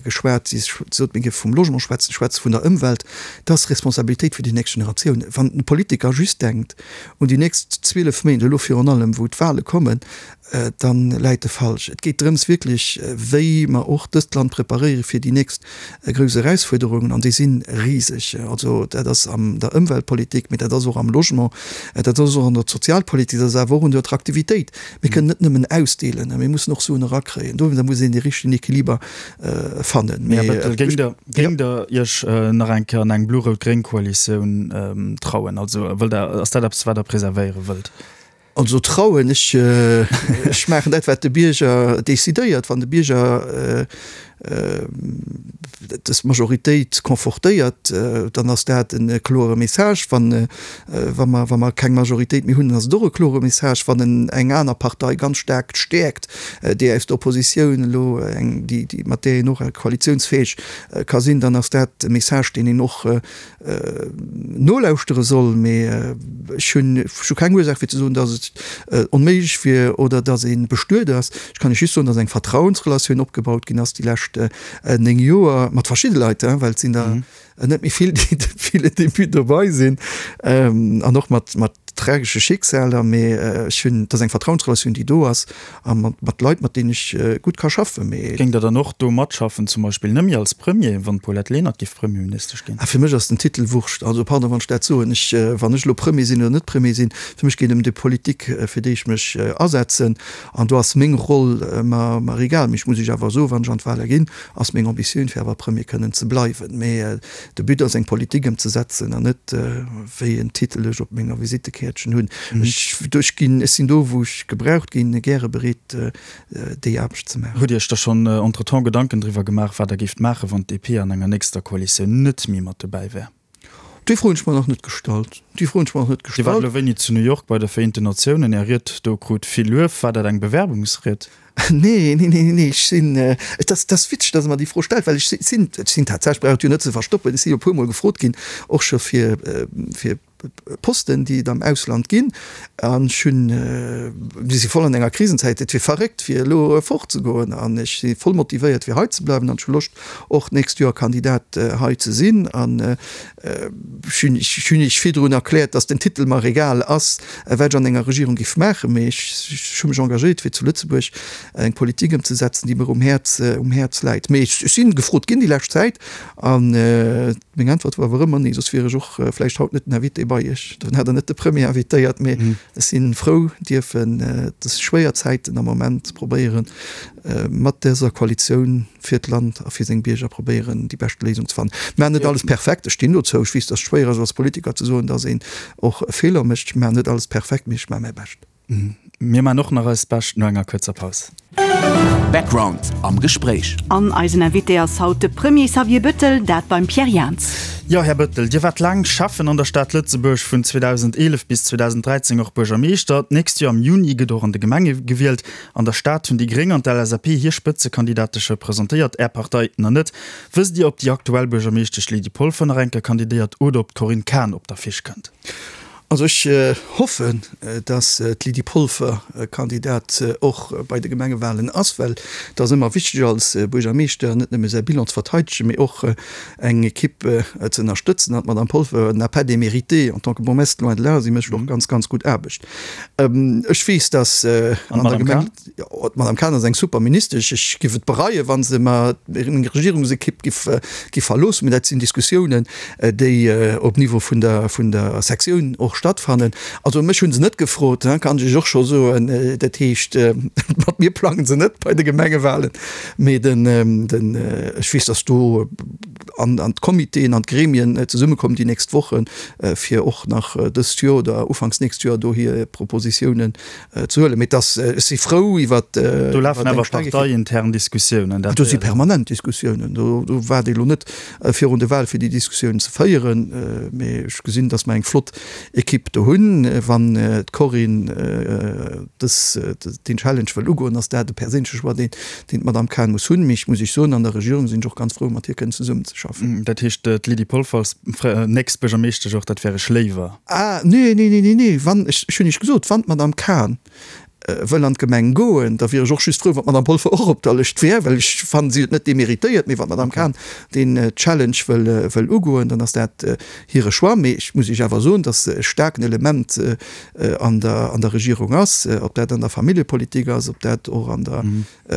geschwat, Dir sot, mir géife vum Logement schwätzen, schwätze vun der Ëmwelt. Dat ass Responsabilitéit fir déi nächst Generatioun. Wann e Politiker just denkt un déi nächst 12 Méint, elo virun allem wou d'Wahle kommen, da läit e falsch. Et geet drëms wierklech, wéi mer och dëst Land preparéiere fir déi nächst grouss Erausfuerderungen, an déi si riseg. Also dat ass an der Ëmweltpolitik, mee dat ass och am Logement, dat ass och an der Sozialpolitik, dat ass awer och un der Attraktivitéit. Mir kënnen net nëmmen ausdeelen, mir mussen och Suen erakréien. Dowéinster muss een dee richtegen Equiliber fannen. Här Bettel, géingt Der, géingt Der Iech nach eng Kéier an eng blo-rout-gréng Koalitioun trauen? Also wëllt Der, ass dat eppes, wat Der preservéiere wëllt? Also trauen, ech, ech maachen dat, wat de Bierger decidéiert. Wann de Bierger. Dës Majoritéit confortéiert, dann ass dat e klore Message. Wann, wa mer, wa mer keng Majoritéit méi hunn, dann ass et och e klore Message. Wann en eng aner Partei ganz staark stäerkt, déi aus der Oppositioun elo eng, déi, déi, mat där een och koalitiounsfäeg ka sinn, dann ass dat e Message, deen een och nolauschtere soll, mee ech hunn ech hu keng Ursaach fir ze soen, datt et onméiglech wier oder datt ee bestuet ass. Ech kann lech just soen, datt eng Vertrauensrelatioun opgebaut ginn ass déi lescht 9 Joer mat verschidde Leit, well et sinn der net méi vill, déi depuis le début dobei sinn, an och mat mat tragesche Schicksaler. Mee ech hunn, et ass eng Vertrauensrelatioun, déi do ass a mat mat Leit, mat deenen ech gutt ka schaffen. Mee. Géingt Der dann och do matschaffen, zum Beispill net méi als Premier, wann d'Paulette Lenert géif Premierministesch ginn? Ah, fir mech ass den Titel Wurscht. Also, pardon, wann ech dat soen. Ech, wann ech elo Premier sinn oder net Premier sinn, fir mech geet et ëm déi Politik, fir déi ech mech asetzen. An do ass meng Roll mer, mer egal. Mee ech muss Iech awer soen, wann ech an d'Wale ginn, ass meng Ambitioun, fir awer Premier kënnen ze bleiwen. Mee De But ass eng Politik ëmzesetzen an net wéi en Titel ech op menger Visittekäertchen hunn. Ech ech ginn, ech sinn do wou ech gebraucht ginn, gäre bereet déi Aarbecht ze maachen. Hutt Iech da schonn entretemps Gedanken driwwer gemaach, wat Der géift maachen, wann d'DP an enger nächster Koalitioun net méi mat dobäi wär? Déi Fro hunn ech mer nach net gestallt. Déi Fro hunn ech mer nach net Dir waart gestallt. elo wéini zu New York bei de Vereenten Natiounen. Är Ried do krut vill Luef. War dat eng Bewerbungsried? Nee, nee, nee, nee, ech sinn, et ass, et ass witzeg, dass Der mer déi Fro stellt, well ech sinn, ech sinn tatsächlech, brauch et jo net ze verstoppen, ech si jo e puermol gefrot ginn, och scho fir, fir Posten, déi et am Ausland ginn. An ech hunn, mir si voll an enger Krisenzäit, et wier verréckt, fir elo fortzegoen. An ech si voll motivéiert, fir hei ze bleiwen an ech hu Loscht, och d'nächst Joer Kandidat hei ze sinn. An ech hunn, ech hunn Iech virdrun erkläert, dass den Titel mer egal ass, wat ech an enger Regierung géif maachen, mee ech, ech hu mech engagéiert, fir zu Lëtzebuerg eng Politik ëmzesetzen, déi mer um Häerz, um Häerz läit. Mee ech si gefrot ginn déi lescht Zäit an meng Äntwert war awer ëmmer nee, soss wier ech och vläicht haut net den Invité bei Iech. Dann hätt Der net de Premier invitéiert. Mee ech si frou, dierfen dës schwéier Zäiten am Moment probéieren, mat dëser Koalitioun fir d'Land a fir seng Bierger probéieren, déi bescht Léisung ze fannen. Mir maachen net alles perfekt, ech stinn dozou. Ech weess, datt et schwéier ass als Politiker ze soen, datt een och Feeler mécht. Ech maachen net alles perfekt, mee ech maache mäi Bescht. Mir maachen och nach eist Bescht no enger kuerzer Paus. Background am Gespréich. An eisen Invité ass haut de Premier Xavier Bettel, dat beim Pierre Jans. Jo, Här Bettel, Dir waart laang Schäffen an der Stad Lëtzebuerg, vun 2011 bis 2013 och Buergermeeschter. D'nächst Joer am Juni gëtt och an de Gemenge gewielt. An der Stad hunn déi Gréng an d'LSAP hir Spëtzekandidate scho presentéiert, Är Partei nach net. Wësst Dir, ob déi aktuell Buergermeeschtesch Lydie Polfer nach eng Kéier kandidéiert oder ob d'Corinne Cahen op d'Affiche kënnt? Also ech hoffen, datt d'Lydie Polfer Kandidat och bei de Gemengewahlen ass, well et ass ëmmer wichteg als Buergermeeschter net nëmme säi Bilan ze verteidegen, mee och eng Equipe ze ënnerstëtzen. An d'Madame Polfer n'a pas démérité en tant que bourgmestre, loin de là, si mécht och ganz, ganz gutt Aarbecht. Ech weess, datt an der Gemeng. D'Madame Cahen ass eng super Ministesch. Ech giff et bereien, wa se mer meng Regierungsekipp giff giff verloossen. Mee dat sinn Diskussiounen, déi op Niveau vun der vun der Sektioun och stattfannen. Also mech hu se net gefrot, kann ech Iech och scho soen. Dat heescht, mat mir plange se net bei de Gemengewahlen. Mee den den ech weess, datt do an an d'Comitéen an d'Gremien zesummekommen déi nächst Wochen, fir och nach dëst Joer oder ufanks nächst Joer do hir Propositiounen ze huelen. Mee et ass, ech si frou iwwert. Do lafen awer parteiintern Diskussiounen. Do si permanent Diskussiounen. Do waart ee lo net virun de Wahl fir déi Diskussiounen ze féieren. Mee ech gesinn, datt mer eng flott Ekipp do hunn. Wann d'Corinne dës, deen Challenge wëll ugoen, ass dat e perséinleche Choix, deen, deen d'Madame Cahen muss hunn. Mee ech muss Iech soen, an der Regierung sinn ech och ganz frou, mat hir kënnen zesummenzeschaffen. Dat heescht, d'Lydie Polfer als nächst Buergermeeschtesch och, dat wär Iech léiwer? Ah, nee, nee, nee, nee, nee, wann, ech, ech hunn Iech gesot, wann d'Madame Cahen wëll an d'Gemeng goen, da wier ech och just frou, wann d'Madame Polfer och op der Lëscht wär, well ech fannen, si huet net deméritéiert. Mee wann d'Madame Cahen deen Challenge wëll, wëll ugoen, dann ass dat hire Choix. Mee ech muss Iech awer soen, dass se e staarken Element an der, an der Regierung ass, ob dat an der Familljepolitik ass, ob dat och an der,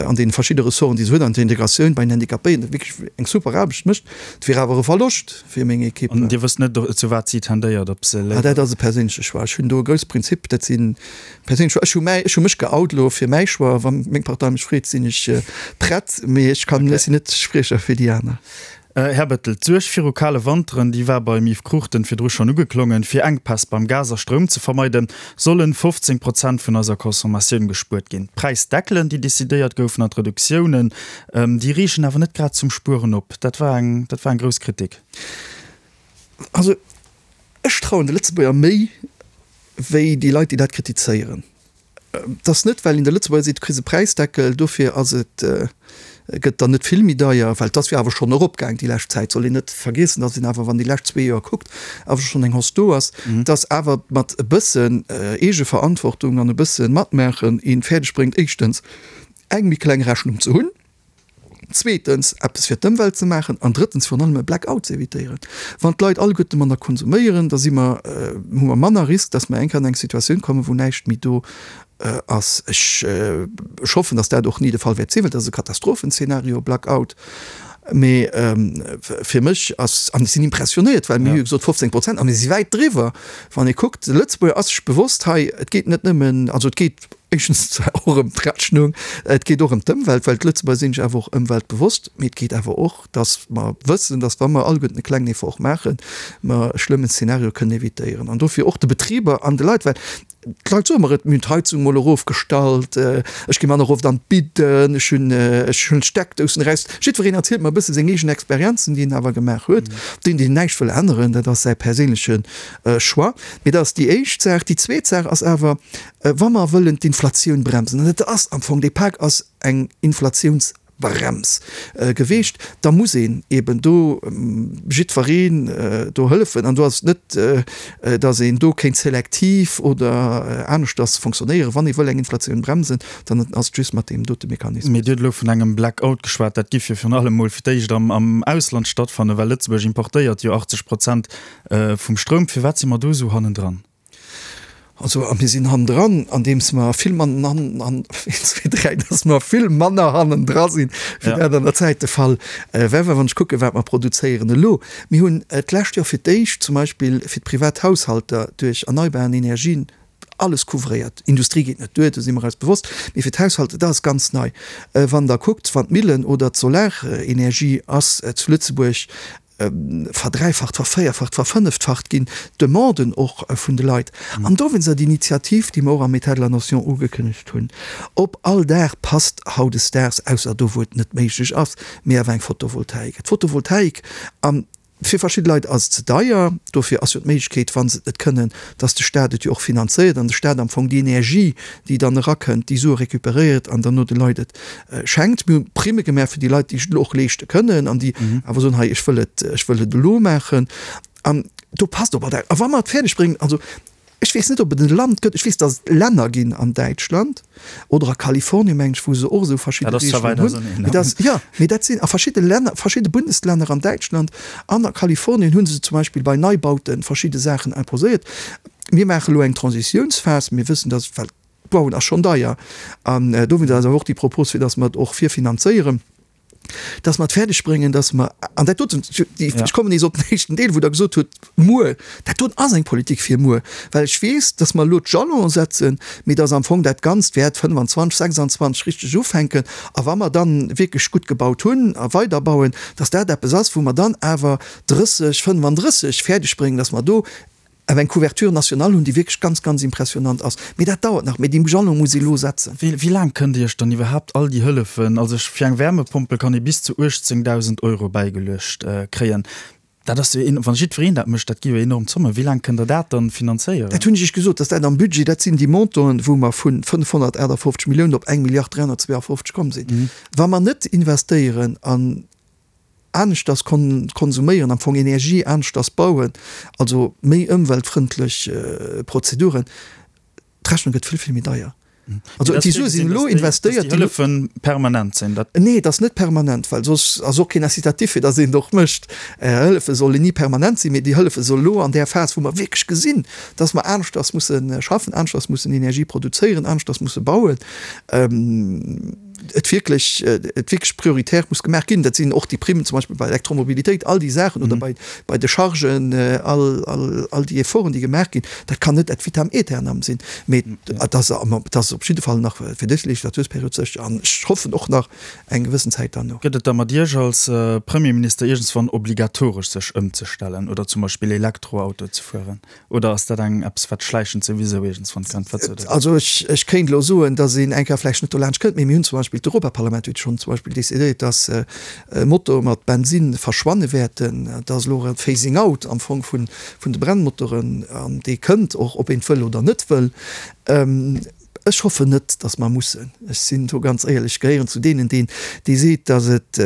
an deene verschidde Ressorten, déi se huet, an der Integratioun bei den Handicapéien wierklech eng super Aarbecht mécht. Et wier awer e Verloscht fir meng Ekipp. An Dir wësst net, zu wat si tendéiert, ob se léiwer. Ah, dat ass e perséinleche Choix. Ech hunn do e grousse Prinzip, dat si perséinlech Choix. Ech hu mäi, ech hu mech geout elo fir mäi Choix. Wa meng Partei mech freet, sinn ech prett, mee ech kann, ech sinn net Spriecher fir déi aner. Här Bettel, d'Suerg viru kale Wanteren, déi war beim Yves Cruchten virdru schonn ugeklongen. Fir Enkpäss beim Gas a Stroum ze vermeiden, sollen 15 Prozent vun eiser Consommatioun gespuert ginn. D'Präisdeckelen, déi decidéiert goufen an d'Reduktiounen, déi reegen awer net grad zum Spueren op. Dat war eng, dat war eng grouss Kritik. Also ech trauen de Lëtzebuerger méi wéi déi Leit, déi dat kritizéieren. Et ass net, well een de Lëtzebuerger seet, du kriss e Präisdeckel, dofir ass et, gëtt dann net vill méi deier, well et ass jo awer schonn eropgaang déi lescht Zäit, soll een net vergiessen, datt een awer, wann déi lescht zwee Joer kuckt, awer schonn eng Hausse do ass, datt awer mat e bëssen Eegeverantwortung an e bësse Matmaachen een fäerdeg bréngt, éischtens eng méi kleng Rechnung ze hunn, Zweetens, eppes fir d'Ëmwelt ze maachen an drëttens, virun allem e Blackout ze evitéieren. Wann d'Leit alleguerte manner konsuméieren, da si mer, hu mer manner Risk, dass mer eng Kéier an eng Situatioun kommen, wou näischt méi do ass. Ech, ech hoffen, dass dat och ni de Fall wäert sinn, well dat ass e Katastrophenzeenario, Blackout. Mee fir mech ass, an ech sinn impressionéiert, well mir hu jo gesot 15 Prozent a mir si wäit driwwer. Wann ee kuckt, de Lëtzebuerger ass sech bewosst hei, et geet net nëmmen, also et geet, Éischtens zwar och ëm d'Rechnung, et geet och ëm d'Ëmwelt, well d'Lëtzebuerger sinn sech awer och ëmweltbewosst, mee et geet awer och, datt mer wëssen, datt wa mer alleguerten e klengen Effort maachen, mer e schlëmmen Szenario kënnen evitéieren. An dofir och de Betriber an de Leit, well d'Leit soe mer et, mir hunn d'Heizung mol erofgestallt, ech gi manner oft an d'Bidden, ech hunn, ech hunn d'Steckdousen eraus. Jiddwereen erzielt mer e bësse seng eegen Experienzen, déi en awer gemaach huet. Deen, deen näischt wëll änneren, dat ass säi perséinleche Choix. Mee dat ass déi éischt Saach. Déi zweet Saach ass awer, Wa mer wëllen d'Inflatioun bremsen, an et ass am Fong, dee Pak ass eng Inflatiounsbrems geweecht, da muss een eeben do jiddwereen do hëllefen. An do ass et net, datt een do kéint selektiv oder aneschters fonctionnéieren. Wann ee wëll eng Inflatioun bremsen, dann ass et just mat deem dote Mechanismus. Mee Dir hutt elo vun engem Blackout geschwat. Dat giff jo virun allem mol fir d'éischt am Ausland stattfannen, well Lëtzebuerg importéiert jo 80 Prozent vum Stroum. Firwat si mer do esou hannendran? Also, a mir sinn hannendran, andeems mer vill mann, an, an, een, zwee, dräi, dass mer vill manner hannendra sinn, wéi dat an der Zäit de Fall war. Well wann ech kucken, wat mer produzéieren elo, mir hunn d'lescht Joer fir d'éischt zum Beispill fir d'Privathaushalter duerch erneibaren Energien alles couvréiert. Industrie geet net duer, do si mer eis bewosst, mee fir d'Haushalter, dat ass ganz nei. Wann Der kuckt, wann d'Millen oder d'Solarenergie ass zu Lëtzebuerg verdräifacht, vervéierfacht, verfënneftfacht ginn, d'Demanden och vun de Leit. An dowéinst ass d'Initiativ, déi mer och am État de la nation ugekënnegt hunn, op all Daach passt hautdesdaags, ausser do wou et net méiglech ass, mee awer eng Photovoltaik. D'Photovoltaik, a fir verschidde Leit ass et ze deier, dofir ass jo d'Méiglechkeet, wa se et net kënnen, dass de Stat et jo och finanzéiert an de Stat am Fong déi Energie, déi dann erakënnt, déi Sue récupéréiert an dann no de Leit et schenkt. Mir hu Primme gemaach fir déi Leit, déi sech et elo och leeschte kënnen an déi awer soen, hei ech wëll et, ech wëll et elo maachen. An do passt op all dat. A wa mer et fäerdeg bréngen, also ech weess net, ob et e Land gëtt, ech weess, datt et Länner ginn an Däitschland oder a Kalifornien, mengen ech, wou se och esou verschidde Regelungen hunn. Mee dat, jo, mee dat sinn a verschidde Länner, verschidde Bundeslänner an Däitschland an a Kalifornien hu se zum Beispill bei Neibaute verschidde Saachen imposéiert. Mir maache elo eng Transitiounsphas. Mir wëssen, datt, well D'Bauen ass schonn deier an dowéinst ass awer och déi Propos, fir datt mer et och virfinanzéieren, datt mer et fäerdeg bréngen, datt mer, an dat doten, ech kommen nees op den éischten Deel, wou Der gesot hutt, muer, dat doten ass eng Politik fir muer, well ech weess, datt mer elo d'Jalonen setzen, mee datt am Fong dat Ganzt wäert 25, 26 richteg ufänken a wa mer dann wierklech gutt gebaut hunn a weiderbauen, datt dat eppes ass, wou mer dann awer 30, 35 fäerdeg bréngen, datt mer do Awer eng Couverture nationale hunn, déi wierklech ganz, ganz impressionnant ass. Mee dat dauert nach. Mee déi Jalon muss ee elo setzen. Wéi laang kënnt Dir Iech dann iwwerhaapt all déi Hëllefen, also fir eng Wärmepompel kann ee bis zu 18.000 Euro bäigeluecht kréien, dat ass jo, wann jiddwereen dat mécht, dat gi jo enorm Zommen. Wéi laang kënnt Der dat dann finanzéieren? Dat hunn ech Iech gesot, dass dat am Budget, dat sinn déi Montanten, wou mer vu 558 Milliounen op eng Milliard 352 komm sinn. Wa mer net investéieren an aneschters konsuméieren, am Fong Energie aneschters bauen, also méi ëmweltfrëndlech Prozeduren, d'Rechnung gëtt vill, vill méi deier. Also déi Sue sinn elo investéiert. Dass déi Hëllefen permanent sinn, dat. Nee, et ass net permanent, well soss ass och keen Incitatif fir dass een et och mécht. Hëllefe sollen ni permanent sinn, mee déi Hëllefe soll elo an där Phas, wou mer wierklech gesinn, dass mer aneschters musse schaffen, aneschters mussen Energie produzéieren, aneschters musse bauen. et wierklech, et wierklech prioritär muss gemaach ginn. Dat sinn och déi Primmen zum Beispill bei Elektromobilitéit, all déi Saachen oder bei, bei de Chargen, all, all, all déi Efforten, déi gemaach ginn, dat kann net ad vitam aeternam sinn, mee et ass, et ass op jidde Fall nach fir dës Legislatursperiod sécher an ech hoffen och nach eng gewëssen Zäit derno. Gëtt et da mat Iech als Premierminister iergendswann obligatoresch sech ëmzestellen oder zum Beispill Elektroauto ze fueren? Oder ass dat eng eppes wat schläichend souwisou iergendswann kënnt? Wat sot Der? Also ech, ech kéint elo soen, datt een eng Kéier vläicht net dolaanscht kënnt, mee mir hunn zum Beispill, d'Europaparlament huet schonn zum Beispill decidéiert, datt Motoe mat Bensinn verschwanne wäerten. Dat ass elo e Phasing out am Fong vun, vun de Brennmotoren an dee kënnt och, ob een et wëll oder net wëll. Ech hoffen net, datt mer mussen. Ech sinn do ganz éierlech, ech gehéieren zu deenen, deen, dee seet, datt et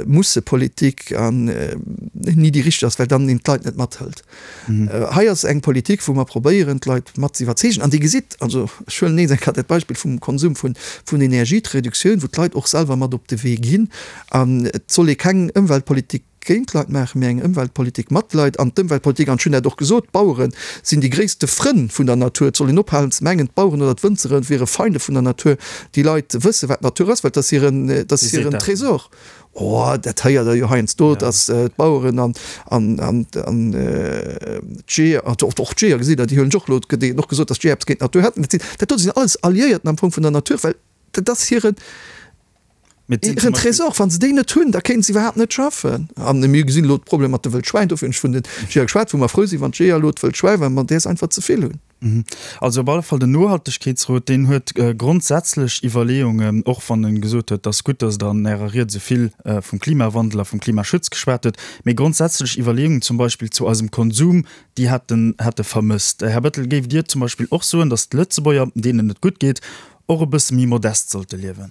Mussepolitik an ni déi richteg ass, well dann een d'Leit net mathëlt. Hei ass eng Politik, wou mer probéieren, d'Leit mat ze iwwerzeegen. An Dir gesitt, also ech huelen nees eng Kéier dat Beispill vum Konsum vun, vun Energie, d'Reduktioun, wou d'Leit och selwer mat op de Wee ginn. An et soll ee keng Ëmweltpolitik géint d'Leit maachen, mee eng Ëmweltpolitik mat Leit. An d'Ëmweltpolitik, an ech hunn dat och gesot, d'Bauere sinn déi gréisste Frënn vun der Natur. Et soll een ophalen ze mengen, d'Baueren oder d'Wënzere wiere Feinde vun der Natur. Déi Leit wësse wat d'Natur ass, well et ass hiren, et ass hiren Tresor. Oh, dat héiert Der jo heiansdo, datt d'Baueren an, an, an, an d'Jeeër, och d'Jeeër, gesitt Der, déi huelen ech och elo, et gëtt och gesot, datt d'Jeeër eppes géint d'Natur hätten. Dat sinn, dat do sinn alles Alliéierten am Fong vun der Natur, well dat ass hiren, Hiren Tresor, wa se déi net hunn, da kéinte se iwwerhaapt net schaffen. An mir gesinn elo d'Problem mat de Wëldschwäin, dofir hunn ech vun de Jeeër geschwat, wou mer frou sinn, wann d'Jeeër elo d'Wëldschwäi, well mer däers einfach ze vill hunn. Also op alle Fall den Nohaltegkeetsrot, deen huet grondsätzlech Iwwerleeungen, och wann e gesot huet, et ass gutt, datt Der an Ärer Ried esou vill vum Klimawandel a vum Klimaschutz geschwat hutt, mee grondsätzlech Iwwerleeungen zum Beispill zu eisem Konsum, déi hätt en hätt e vermësst. Här Bettel, géift Dir zum Beispill och soen, datt d'Lëtzebuerger, deenen et gutt geet, och e bësse méi modest sollte liewen?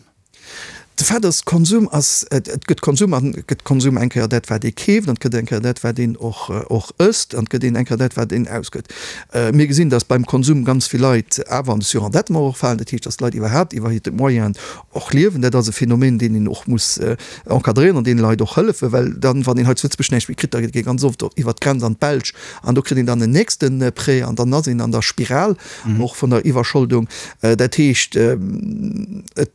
De Fait ass, Konsum ass, et gëtt Konsum an et gëtt Konsum eng Kéier dat wat ee keeft an et gëtt eng Kéier dat wat een och och ësst an et gëtt een eng Kéier dat wat een ausgëtt. Mir gesinn, datt beim Konsum ganz vill Leit awer an de Surendettement och falen, dat heescht, datt d'Leit iwwerhaapt iwwer hir Moyenen och liewen. Dat ass e Phänomen, deen een och muss encadréieren an deene Leit och hëllefen, well dann, wann een hei zu Lëtzebuerg näischt méi kritt, da geet ee ganz oft iwwer d'Grenz an d'Belsch an do kritt een dann en nächste Prêt an dann ass een an der Spiral och vun der Iwwerscholdung. Dat heescht, et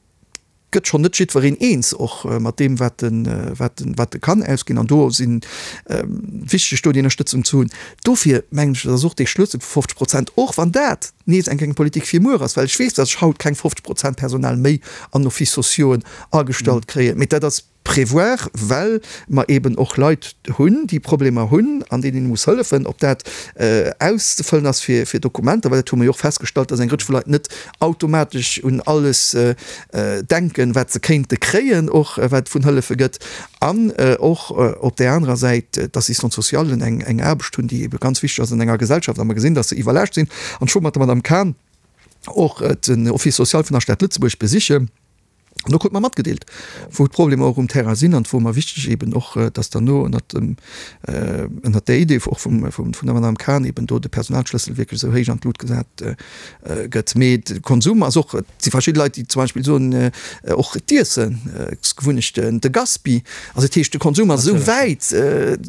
gëtt schonn net jiddwereen eens och mat deem, wat e, wat e, wat e kann ausginn. An do si wichteg, do déi Ënnerstëtzung ze hunn. Dofir mengen ech, dat ass och dee Schlëssel vu 50 Prozent, och wann dat nees eng eng Politik fir muer ass, well ech weess, datt ech haut keng 50 Prozent Personal méi an Offices sociauxen agestallt kréien, mee dat ass, Prévoir, well mer eben och Leit hunn, déi Problemer hunn an deenen ee muss hëllefen, ob dat auszefëllen ass fir Dokumenter, well dat hu mer jo och festgestallt, dass eng Rëtsch vu Leit net automatesch un alles denken, wat se kéinte kréien, och wat et vun Hëllefe gëtt, an och op där anerer Säit d'Assistante-socialen eng Aarbecht hunn, déi ebe ganz wichteg ass an enger Gesellschaft, a mer gesinn, dass se iwwerlaascht sinn. An ech wor mat der Madame Cahen och den Office social vun der Stad Lëtzebuerg besichen. An do krut mer matgedeelt, wou d'Problemer och um Terrain sinn an et wor mer wichteg eben och, dass derno ënnert dem, ënnert där Idee och vum, vum, vun der Madame Cahen eben do de Personalschlëssel wierklech esou héich an d'Lut gesat gëtt. Mee de Konsum ass och, et si verschidde Leit, déi zum Beispill soen, och d'Iessen, Gewunnechten, de Gaspi, also dat heescht de Konsum ass esou wäit,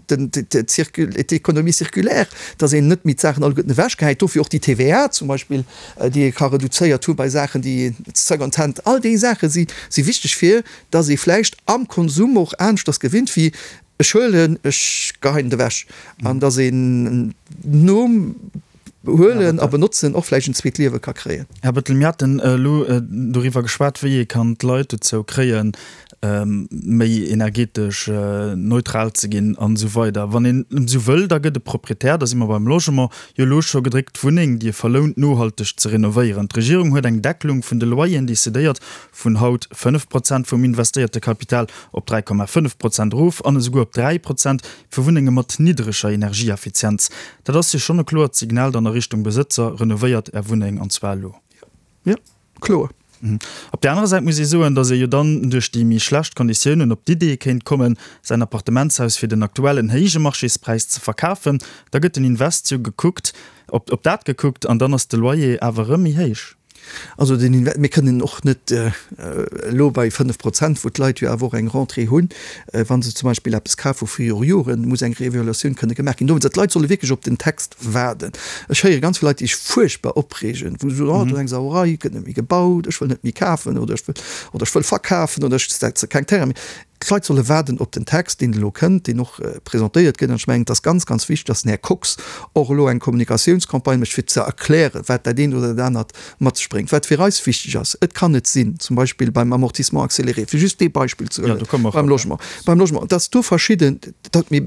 den, d'Économie circulaire, dass een net méi d'Saachen alleguerten ewechgehäit. Dofir och déi TVA zum Beispill, déi ee ka reduzéiert hu bei Saachen, déi Second Hand, all déi Saache si si wichteg fir datt ee vläicht am Konsum och aneschters gewinnt wéi ech huelen, ech geheien et ewech an datt een nom Huelen a Benotzen och vläicht en zweet Liewe ka kréien. Här Bettel, mir haten elo doriwwer geschwat, wéi ee kann d'Leit dozou kréien, méi energetesch neutral ze ginn an esou weider. Wann een esou wëll, da gëtt e Proprietär, da si mer beim Logement, jo elo scho gedréckt, d'Wunneng, déi e verlount, nohalteg ze renovéieren. D'Regierung huet eng Deckelung vun de Loyeren decidéiert, vun haut 5 Prozent vum investéierte Kapital op 3,5 Prozent erof an esouguer op 3 Prozent fir Wunnenge mat niddreger Energieeffizienz. Dat ass jo schonn e kloert Signal dann a Richtung Besëtzer, Renovéiert Är Wunneng, an zwar elo. Jo, kloer. Op där anerer Säit muss ee soen, datt ee jo dann duerch déi méi schlecht Konditiounen op d'Idee kéint kommen, säin Appartementshaus fir den aktuellen héije Marchéspräis ze verkafen. Da gëtt den Invest jo gekuckt, op op dat gekuckt an dann ass de Loyer awer erëm méi héich. Also den Inve-, mir kënnen och net elo bei 5 Prozent, wou d'Leit jo awer och eng Rentrée hunn, wa se zum Beispill eppes kafe vu viru Joren, muss eng Reevaluatioun kënne gemaach ginn. Dowéinst, d'Leit solle wierklech op den Text waarden. Ech héiere ganz vill Leit, déi sech fuerchtbar opreegen, wou se soen, oh do ass eng Sauerei, et gëtt net méi gebaut, ech wëll net méi kafen oder ech wëll, oder ech wëll verkafen oder ech setze keng Terraine méi. D'Leit solle waarden op den Text, deen elo kënnt, deen och presentéiert gëtt. An ech mengen, et ass ganz, ganz wichteg, dass den Här Kox och elo eng Kommunikatiounscampagne mécht, fir ze erklären, wat dat eent oder dat anert mat sech bréngt. Wat fir eis wichteg ass, Et kann net sinn, zum Beispill beim Amortissement accéléré, fir just dee Beispill ze huelen, beim Logement, beim Logement, dass do verschidden, datt mir,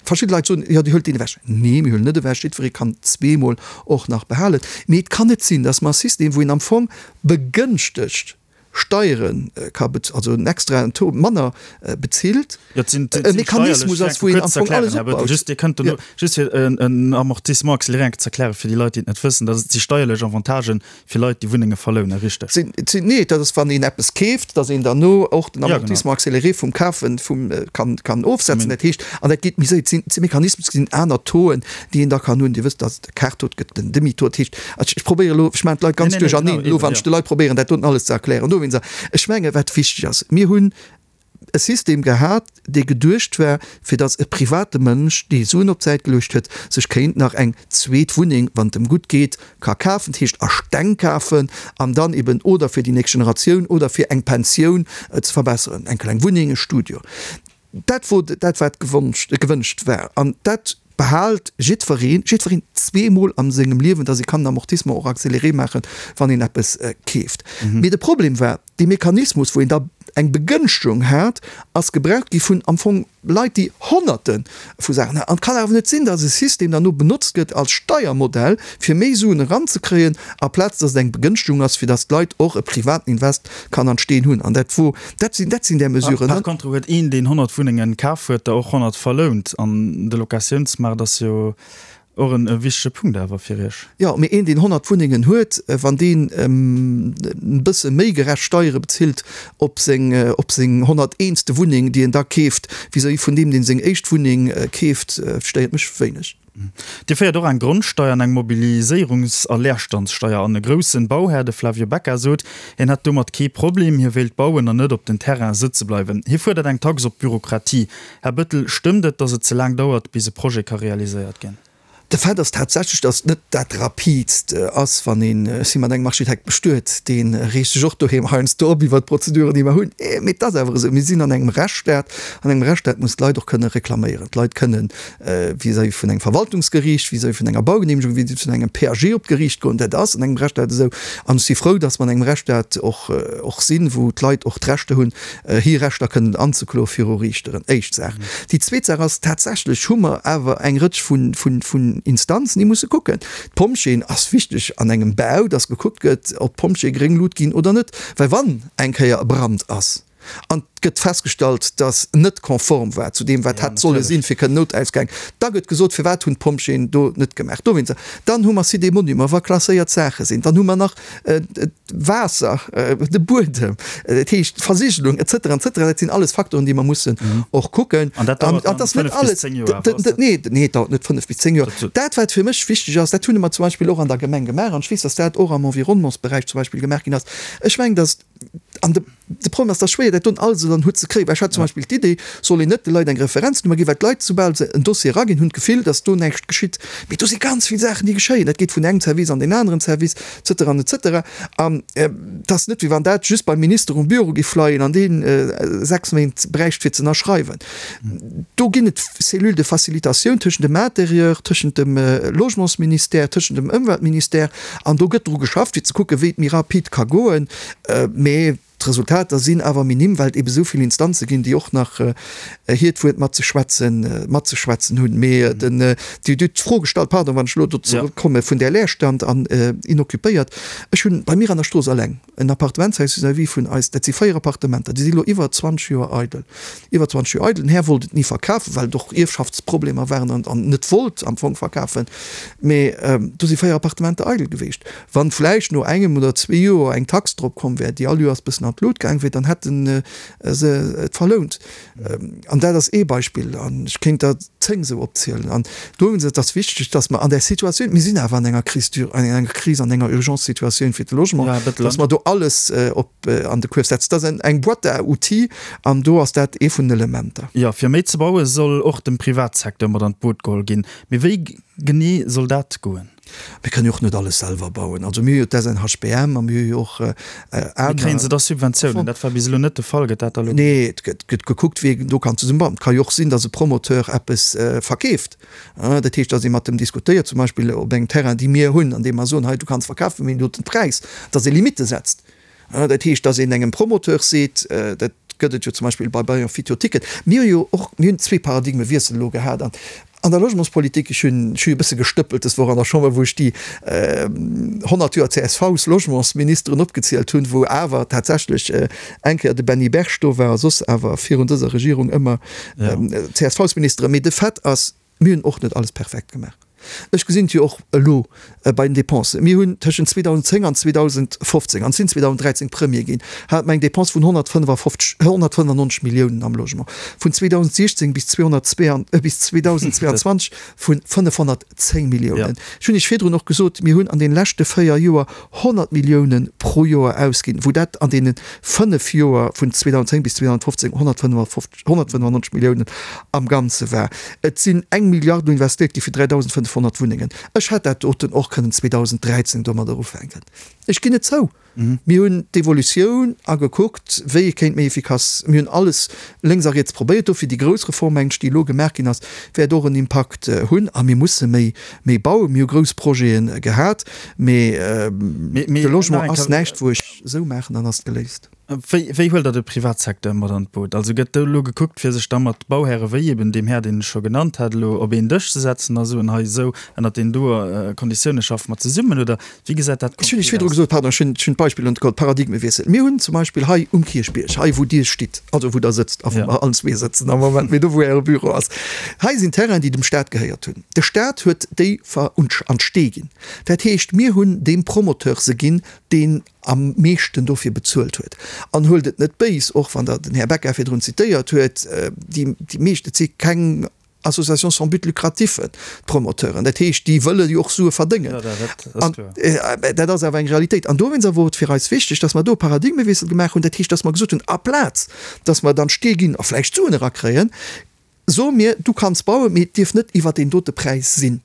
verschidde Leit soen, jo, Dir huelt deen ewech. Nee, mir huelen net ewech, jiddweree kann zweemol och nach behalen. Mee et kann net sinn, dass mer e System, wou een am Fong begënschtegt Steiere ka bez-, also en extraen Taux manner bezilt, Jo, et sinn, et e sinn Mechanismus steierlech, ass, wou een kuerz am ze Fong erklären, alles Här Bettel, opbaut. just Dir kënnt dono, Jo. just fir en, en Amortissement accéléré eng Kéier ze erklären fir déi Leit, déi et net wëssen, dat si steierlech Avantagen fir Leit, déi Wunnenge verlounen, richteg? Sinn, sinn, nee, dat ass, wann een eppes keeft, dass een derno och den Ja, genau. Amortissement accéléré vum Kafen vum, kann, kann ofsetzen. Dat heescht, an dat geet méi séier, et sinn, et si Mechanismen, et sinn aner Tauxen, déi een da kann hunn. Dir wësst, dass et Kaartaux gëtt, den Demi-taux, dat heescht, Ech probéieren elo, ech maachen d'Leit ganz duercherneen elo, wann ech de Leit probéieren, dat doten alles ze erklären. Dowéinst, ech menge wat wichteg ass, mir hunn e System gehat, dee geduecht war, fir datt e private Mënsch, dee Suen op d'Säit geluecht huet, sech kéint nach eng zweet Wunneng, wann et em gutt geet, ka kafen, dat heescht a Steng kafen an dann eben oder fir déi nächst Generatioun oder fir eng Pensioun ze verbesseren, eng kleng Wunneng, e Studio. Dat wor dat, wat gewënscht war. An dat behaalt jiddwereen, jiddwereen zweemol a sengem Liewen, dass ee kann den Amortissement och accéléré maachen, wann een eppes keeft. Mee de Problem war, dee Mechanismus, wou een da eng Begënschtegung hat, ass gebraucht gi vun am Fong Leit, déi Honnerte vu Saachen haten. An et kann awer net sinn, dass e System dann no benotzt gëtt als Steiermodell, fir méi Suen eranzekréien, aplaz dass et eng Begënschtegung ass, fir dass d'Leit och e privaten Invest kann an d'Steen hunn. An dat wor, dat sinn, dat sinn där Mesuren. Par contre huet een, deen 100 Wunnengen kaf huet, der och 100 verlount. An de Locatiounsmaart ass jo och en wichtege Punkt awer fir Iech. Jo, mee een, deen 100 Wunnengen huet, wann deen e bësse méi gerecht Steiere bezilt op seng, op seng 101. Wunneng, déi en da keeft, vis-à-vis vun deem, deen seng éischt Wunneng keeft, stéiert mech wéineg. Dir féiert och eng Grondsteier an eng Mobiliséierungs a Leerstandssteier an. E groussen Bauhär, de Flavio Becca, sot, hien hätt domat kee Problem, hie wéilt bauen an net op den Terrain sëtze bleiwen. Hie fuerdert eng Tax op d'Bürokratie. Här Bettel, stëmmt et, datt et ze laang dauert, bis e Projet ka realiséiert ginn? De Fait ass tatsächlech, datt et net dat Rapidst ass, wann een, ech si mat engem Architekt bestuet, dee reegt sech och doheem heiansdo op iwwert d'Prozeduren, déi mer hunn. Mee et ass awer esou, mir sinn an engem Rechtsstaat. An engem Rechtsstaat muss d'Leit och kënne reklaméieren. D'Leit kënnen vis-à-vis vun engem Verwaltungsgeriicht, vis-à-vis vun enger Baugenehmegung, vis-à-vis vun engem PAG op d'Geriicht goen. Dat ass an engem Rechtsstaat esou. An ech si frou, dass mer an engem Rechtsstaat och, och sinn, wou d'Leit och d'Rechter hunn, hir Rechter kënnen anzekloe viru Riichteren. Éischt Saach. Déi zweet Saach ass, tatsächlech hu mer awer eng Rëtsch vun, vun, vun Instanzen, déi musse kucken. D'Pompjeeën ass wichteg an engem Bau, dass gekuckt gëtt, ob d'Pompjeeë gréng Lut ginn oder net. Well wann eng Kéier e Brand ass, an et gëtt festgestallt, dass net konform war zu deem, wat hätt solle sinn, fir kënnen Noutausgäng, da gëtt gesot, firwat hunn d'Pompjeeën do net gemaach. Dowéinster. Dann hu mer Site des Monuments, wa klasséiert Saache sinn. Dann hu mer nach d'Waasser, de Buedem, dat heescht d'Versigelung et cetera, et cetera. Dat sinn alles Faktoren, déi mer mussen och kucken. An dat dauert dann 5 bis 10 Joer awer, ass dat? Nee, nee, et dauert net 5 bis 10 Joer. Dat, wat fir mech wichteg ass, dat hunn mer zum Beispill och an der Gemeng gemaach, an ech weess, dass dat och am Environnementsberäich zum Beispill gemaach ginn ass, ech mengen, dass, An de Problem ass, et ass schwéier, dat don alles ënner den Hutt ze kréien. Well ech hat zum Beispill d'Idee, soll een net de Leit eng Referenznummer ginn, well d'Leit, soubal se en Dossier eraginn, hunn d'Gefill, datt do näischt geschitt. Mee do si ganz vill Saachen, déi geschéien. Dat geet vun engem Service an deen aneren Service, et cetera an et cetera. An et ass net, wéi wann dat just beim Minister um Büro géif leien an dee 6 Méint bräicht, fir ze ënnerschreiwen. Do ginn et Cellules de facilitation tëschent dem Intérieur, tëschent dem Logementsministère, tëschent dem Ëmweltministère. An do gëtt dru geschafft, fir ze kucken, wéi et méi rapid ka goen. Mee d'Resultater sinn awer minim, well et ebe sou vill Instanze ginn, déi och nach hiert Wuert matzeschwätzen, matzeschwätzen hunn. Mee den, Dir hutt d'Fro gestallt, pardon, wann ech elo do zeréckkomme vun där Leerstand an inoccupéiert. Ech hunn bei mir an der Strooss eleng en Appartementshaus vis-à-vis vun eis, dat si 4 Appartementer, déi si elo iwwer 20 Joer eidel. Iwwer 20 Joer eidel. Den Här wollt et ni verkafen, well et och Ierfschaftsproblemer waren an an net wollt am Fong verkafen. Mee do si 4 Appartementer eidel geweecht. Wann vläicht no engem oder zwee Joer eng Tax drop komm wär, déi all Joers bëssen an. an d'Lut gaang wier, dann hätte se et verlount. An dat ass ee Beispill, an ech kéint der 10 esou opzielen. An dowéinst et ass wichteg, dass mer an där Situatioun, mir sinn awer an enger Crise d'ur-, an enger Kris, an enger Urgence-Situatioun fir de Logement, dass mer do alles op an de Kuerf setzen. Dat ass eng Boîte à outils an do ass dat ee vun den Elementer. Jo, fir méi ze baue soll och de Privatsecteur mat an d'Boot geholl ginn. Mee wéi genee soll dat goen? Mir kënnen jo och net alles selwer bauen. Also mir hu jo d'SNHBM a mir hu jo och aner. Mee kréien se da Subventiounen? Dat war bis elo net de Fall. Gëtt dat da elo? Nee, et gëtt gekuckt, wéi een do kann zesummebauen. Et ka jo och sinn, datt e Promoteur eppes verkeeft. Dat heescht, datt ee mat em diskutéiert, zum Beispill op engem Terrain, dee mir hunn, an deem mer soen, hei du kanns verkafen, mir hunn do den Präis, datt ee Limitte setzt. Dat heescht, datt een engem Promoteur seet, dat gëtt et jo zum Beispill bei Bayern Fitio Ticket, mir hu jo och, mir hunn zwee Paradigmewiessel elo gehat an an der Logementspolitik. Ech hunn, ech hu jo e bësse gestëppelt dës Woch an der Chamber, wou ech déi 100 Joer CSVs-Logementsministeren opgezielt hunn, wou awer tatsächlech eng Kéier de Benny Berg do war a soss awer virun dëser Regierung ëmmer CSVs-Ministeren. Mee de Fait ass, Mir hunn och net alles perfekt gemaach. Ech gesinn et jo och elo bei den Dépensen. Mir hunn tëschent 2010 an 2015, an sinn 2013 Premier ginn, hate mer eng Dépense vun 155, 195 Milliounen am Logement, vun 2016 bis 2022 vu 510 Milliounen. Ech hunn Iech virdrun och gesot, mir hunn an deene leschte véier Joer 100 Milliounen pro Joer ausginn, wou dat an deene fënnef Joer vun 2010 bis 2015 155, 195 Milliounen am Ganze war. Et sinn eng Milliard investéiert gi fir 3.500 Wunnengen. Ech hätt dat doten och kënnen 2013 domadder ufänken. Ech ginn et zou. Mir hunn d'Evolutioun agekuckt, wéi ee kéint méi efficace, mir hunn alles lénks a riets probéiert. Dofir déi grouss Reform, mengen ech, déi elo gemaach ginn ass, wäert och en Impakt hunn. A mir musse méi, méi bauen. Mir hu grouss Projete gehat, mee de Logement ass näischt, wou ech esou maachen, dann ass et geléist. Wéi, wéi huelt Der de Privatsecteur mat an d'Boot? Also gëtt do elo gekuckt, fir sech da mat Bauhäre wéi eben deem Här, deen ech scho genannt hat, elo op een Dësch ze setzen a soen, hei esou ënnert deenen doe Konditioune schaffe mer zesummen, oder wéi gesäit dat Ech hunn Iech konkret virdru aus? gesot, pardon, ech hunn, ech hunn d'Beispill net geholl, Paradigmewiessel. Mir hunn zum Beispill hei um Kierchbierg, hei wou Dir stitt, also wou Der sëtzt, a wou mer allen zwee sëtzen am Moment, mee do wou Äre Büro ass, hei sinn Terrainen, déi dem Stat gehéiert hunn. De Stat huet déi ver an d'Stee ginn. Dat heescht, mir hunn deem Promoteur se ginn, deen am meeschten dofir bezuelt huet. An huelt et net béis, och wann Der den Här Becker virdrun zitéiert huet, déi meescht, et si keng Associations sans but lucratif, d'Promoteuren, dat heescht, déi wëlle jo och Sue verdéngen. An dat ass awer eng Realitéit. An dowéinst awer wor et fir eis wichteg, dass mer do e Paradigmewiessel gemaach hunn, dat heescht, dass mer gesot hunn, aplaz dass mer dann d'Stee ginn a vläicht Suen erakréien, soe mir, du kanns bauen, mee et dierf net iwwert deen dote Präis sinn.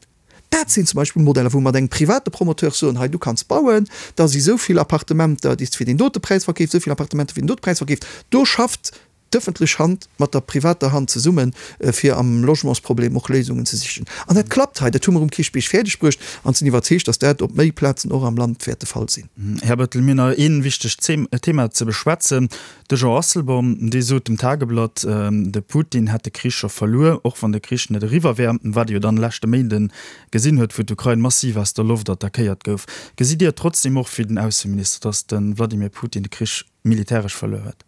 Dat sinn zum Beispill Modeller, wou mer mat engem private Promoteur soen, hei du kanns bauen, da si sou vill Appartementer, déi s de fir deen dote Präis verkeefs, sou vill Appartementer fir deen dote Präis verkeefs. Do schafft d'ëffentlech Hand mat der privater Hand zesummen, fir am Logementsproblem och Léisungen ze sichen. An dat klappt hei. Dat hu mer um Kierchbierg fäerdeg bruecht an sinn iwwerzeegt, datt dat op méi Plazen och am Land wäert de Fall sinn. Här Bettel, mir hunn nach ee wichtegt Thema ze beschwätzen. De Jean Asselborn, dee sot dem Tageblatt, de Putin hätt de Krich scho verluer, och wann de Krich net eriwwer wär, wat ee jo dann leschte Méinde gesinn huet, wou d'Ukrain massiv aus der Loft attackéiert gouf. Gesitt Dir et trotzdeem och wéi den Ausseminister, datt de Wladimir Putin de Krich militäresch verluer huet?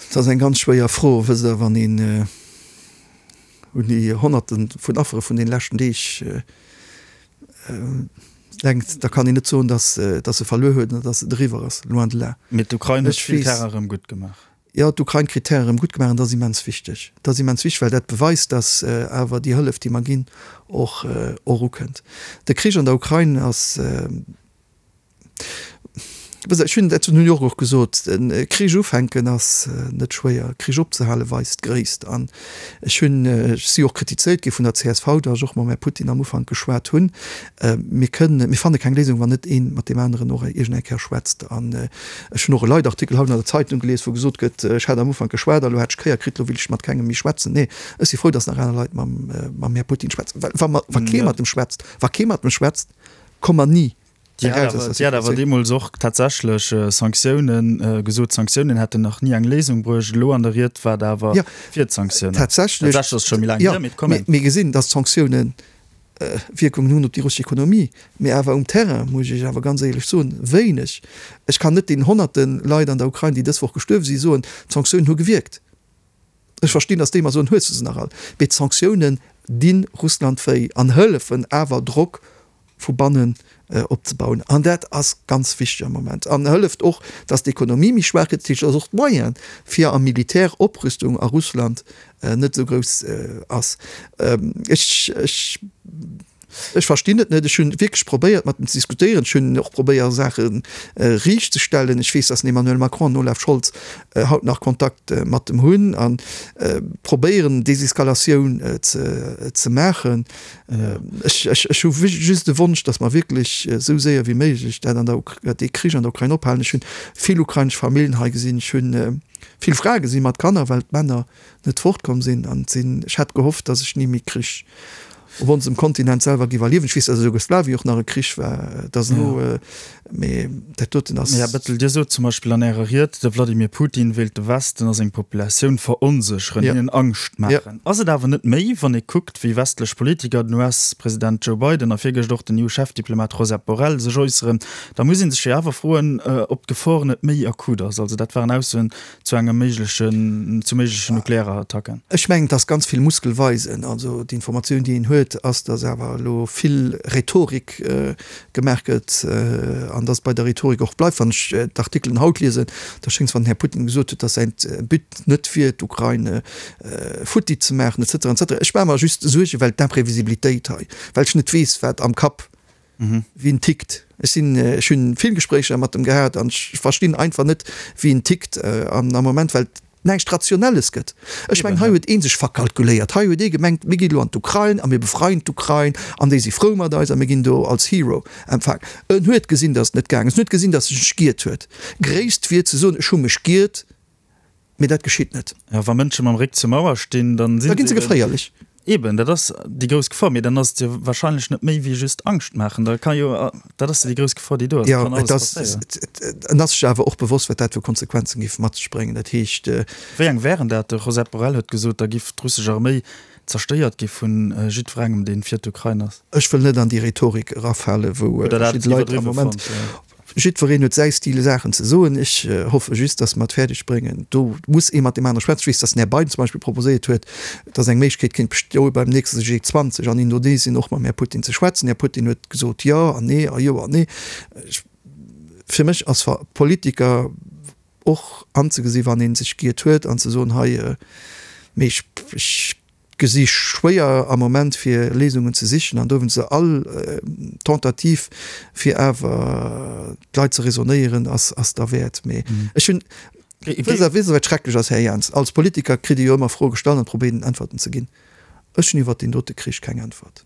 Dat ass eng ganz schwéier Fro. Wësst Der, wann een un déi Honnerte vun Affere vun deene leschten Deeg denkt, da kann een net soen, datt datt se verluer huet oder datt et eriwwer ass, loin de là. Mee d'Ukrain huet vill Terrain erëm gutt gemaach. Jo, d'Ukrain kritt Terrain erëm gutt gemaach an dat ass immens wichteg. Dat ass immens wichteg, well dat beweist, datt awer déi Hëllef, déi mer ginn, och och ukënnt. De Krich an der Ukrain ass. Ech hunn dat zu New York och gesot, e Krich ufänken ass net schwéier, e Krich opzehale weist Gréisst. An ech hunn, ech si och kritizéiert gi vun der csv, datt ech och mam Här Putin am Ufank geschwat hunn. Mir kënnen, mir fanne keng Léisung, wann net ee mat deem aneren och iergend eng Kéier schwätzt. An ech hunn och e Leitartikel haut an der Zeitung gelies, wou gesot gëtt, ech hätt am Ufank geschwat a lo hätt ech Kéier kritt, lo will ech mat kengem méi schwätzen. Nee, ech si frou, datt nach aner Leit mam, mam Här Putin schwätzen. Well wa mer, wa kee mat em schwätzt, wa kee mat em schwätzt, komme mer ni Dir hat awer, Dir hat awer deemools och tatsächlech Sanktiounen gesot, Sanktiounen hätten nach ni eng Léisung bruecht. Elo an der Ried war Der awer fir d'Sanktiounen. Tatsächlech ass et scho méi laang hier, mee et kommen. Mir gesinn, datt d'Sanktioune Wierkungen hunn op déi russesch Ekonomie, mee awer um Terrain, muss ech Iech awer ganz éierlech soen, wéineg. Ech kann net deenen honnerte Leit an der Ukrain, déi dës Woch gestuerwe sinn, soen, d'Sanktiounen hu gewierkt. Ech verstinn, datt déi mer soen, hues de se nach all? Mee d'Sanktiounen di Russland wéi an hëllefen awer Drock vu bannen. opzebauen. An dat ass ganz wichteg am Moment an hëlleft och, datt d'Ekonomie méi schwaach gëtt, dat heescht, datt och d'Moyene fir a Militäroprüstung a Russland net esou grouss ass. Ech, ech, ech verstinn et net. Ech hunn wierklech probéiert, mat em ze diskutéieren. Ech hunn och probéiert, Saache riichtzestellen. Ech weess, datt den Emmanuel Macron an den Olaf Scholz haut nach Kontakt mat em hunn a probéieren, Deseskalatioun ze, ze maachen. Ech, ech, ech hu just de Wonsch, datt mer wierklech esou séier wéi méiglech dat an der, dee Krich an der Ukrain ophalen. Ech hunn vill ukrainesch Familljen hei gesinn. Ech hunn vill Frae gesinn mat Kanner, well d'Männer net fortkomm sinn an sinn. Ech hat gehofft, dass ech ni méi Krich op onsem Kontinent selwer giff erliewen. Ech weess, dass a Jugoslawien och nach e Krich war, dass elo, mee dat doten ass. Här Bettel, Dir sot zum Beispill an Ärer Ried, de Vladimir Putin wéilt de Westen a seng Populatioun veronsécheren, hinnen Angscht maachen. Ass et awer net méi, wann ee kuckt, wéi westlech Politiker, den US-President Joe Biden a virgëscht och den EU-Chefdiplomat Josep Borrell sech äusseren, da muss ee sech jo awer froen, ob d'Gefor net méi akut ass. Also dat waren Aussoen, zu engem méiglechen, zu méiglechen Nuklearattacken? Ech mengen, et ass ganz vill Muskel weisen. Also d'Informatioun, déi een huet, ass, datt awer elo vill Rhetorik gemaach gëtt an datt et bei der Rhetorik och bleift. Wann ech d'Artikelen haut liesen, da schéngt es, wann den Här Putin gesot huet, datt säin But net wier, d'Ukrain futti ze maachen et cetera et cetera. Ech maache mer just Suergen, well d'Imprevisibilitéit hei, well ech net weess, wat am Kapp wéi en tickt. Ech sinn, ech hunn vill Gespréicher mat em gehat an ech verstinn einfach net, wéi en tickt an am Moment, well et näischt Rationelles gëtt. Ech mengen, hei huet ee sech verkalkuléiert. Hei huet ee gemengt, mir ginn elo an d'Ukrain a mir befreien d'Ukrain an déi si frou mat eis a mir ginn do als Hero empfaangen. En huet gesinn, datt et net gaang ass. En huet gesinn, datt e sech giert huet. Gréisst wier ze soen, ech hu mech giert. Mee dat geschitt net. Ja, wa Mënsche mam Réck zur Mauer stinn, dann sinn se. Da ginn se geféierlech. Eben, dat ass déi grouss Gefor. Mee dann ass et jo warscheinlech net méi wéi just Angscht maachen. Da ka jo, dat ass jo déi grouss Gefor, déi do ass. Jo, et ass, en ass sech awer och bewosst, wat dat fir Konsequenzen géif mat sech bréngen. Dat heescht. Wéi eng wären dat? De Josep Borrell huet gesot, da giff d'russesch Arméi zerstéiert gi vu jiddwerengem, dee fir d'Ukrain ass. Ech wëll net an déi Rhetorik erafalen, wou verschidde Leit am Moment. Jiddwereen huet säi Stil Saachen ze soen. Ech hoffe just, datt mer et fäerdeg bréngen. Do muss ee mat deem anere schwätzen. Ech weess, datt den Här Biden zum Beispill proposéiert huet, datt eng Méiglechkeet kéint bestoe beim nächste G20 an Indonesien och mam Här Putin ze schwätzen. Den Här Putin huet gesot jo an nee a jo an nee. Fir mech ass Politiker och anzegesi wann ee sech giert huet an ze soen, hei, mee ech gesi schwéier am Moment fir Léisungen ze sichen an dowéinst all Tentative fir awer d'Leit ze raisonnéieren ass ass derwäert. Mee ech hunn, wësst Der wësst Der wat schrecklech ass, Här Jans? Als Politiker kritt Dir jo ëmmer Froe gestallt an probéiert Äntwerten ze ginn. Ech hunn iwwert deen dote Krich keng Äntwert.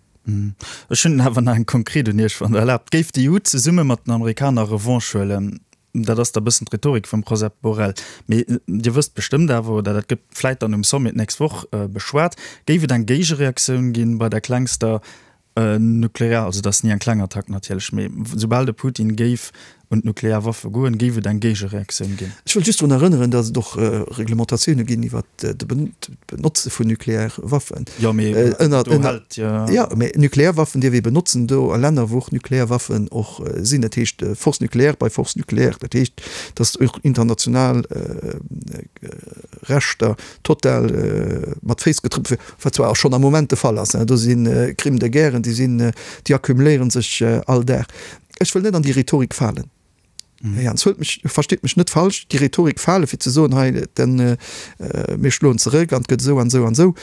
Ech hunn awer nach eng konkret un Iech, wann Der erlaabt. Géif d'EU zesumme mat den Amerikaner Revanche huelen? Dat ass da bëssen d'Rhetorik vum Josep Borrell. Mee Dir wësst bestëmmt awer, oder dat gëtt vläit dann um Sommet d'nächst Woch beschwat, géif et eng Géigereaktioun ginn bei der klengster nuklear, also dat ass ni eng kleng Attack natierlech, mee soubal de Putin géif un d'nuklear Waffe goen, géif et eng Géigereaktioun ginn. Ech wëll just drun erënneren, datt et och Reglementatioune ginn iwwert d'Benotze vun Nuklearwaffen. Jo, mee do hält jo. Jo, mee Nuklearwaffen dierf ee benotzen do a Länner, wou och Nuklearwaffen och sinn. Dat heescht Force nucléaire bei Force nucléaire. Dat heescht, datt och international Rechter total mat Féiss getrëppelt ginn, wat zwar och schonn am Moment de Fall ass. Do si Crimes de guerre, déi sinn, déi accumuléiere sech all Dag. Ech wëll net an déi Rhetorik falen. Här Jans, huelt mech, versteet mech net falsch, déi Rhetorik fale fir ze soen, hei den, mir schloen zeréck an et gëtt esou an esou an esou.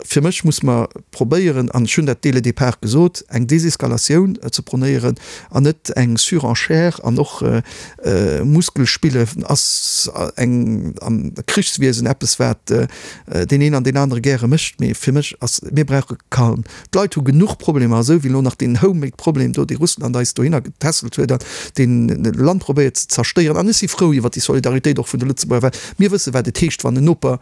Fir mech muss mer probéieren, an ech hunn dat dès le départ gesot, eng Deseskalatioun ze pronéieren an net eng Surenchère an och Muskelspille ass eng am Krichswiesen eppes wat deen een an deen anere gäre mécht, mee fir mech ass, mir brauche Calme. D'Leit hu genuch Problemer, esou wéi elo nach deen homemade Problem do, dee Russland eis dohinner getässelt huet an deen Land probéiert ze zerstéieren. An ech si frou iwwert déi Solidaritéit och vun de Lëtzebuerger, well mir wësse wat et heescht, wann en Noper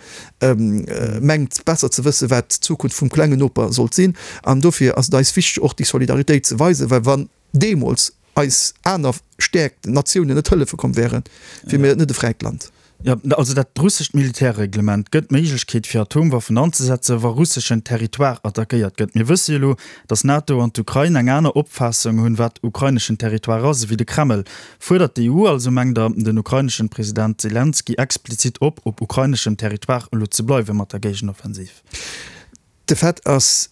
mengt besser ze wësse wat d'Zukunft vum klengen Noper sollt sinn. An dofir ass et eis wichteg och déi Solidaritéit ze weisen, well wann deemools eis aner Stäerkt Natiounen net hëllefe komm wären, wier mir net e fräit Land. Jo, also dat russescht Militärreglement gëtt d'Méiglechkeet fir Atomwaffen anzesetzen, wa russeschen Territoire attackéiert gëtt. Mir wësse jo elo, datt d'NATO an d'Ukrain eng aner Opfaassung hunn, wat ukraineschen Territoire ass, ewéi de Kreml. Fuerdert d'EU also, mengt Der, den ukraineschen President Selenskyj explizit op, op ukraineschem Territoire elo ze bleiwe mat der Géigenoffensiv? De Fait ass.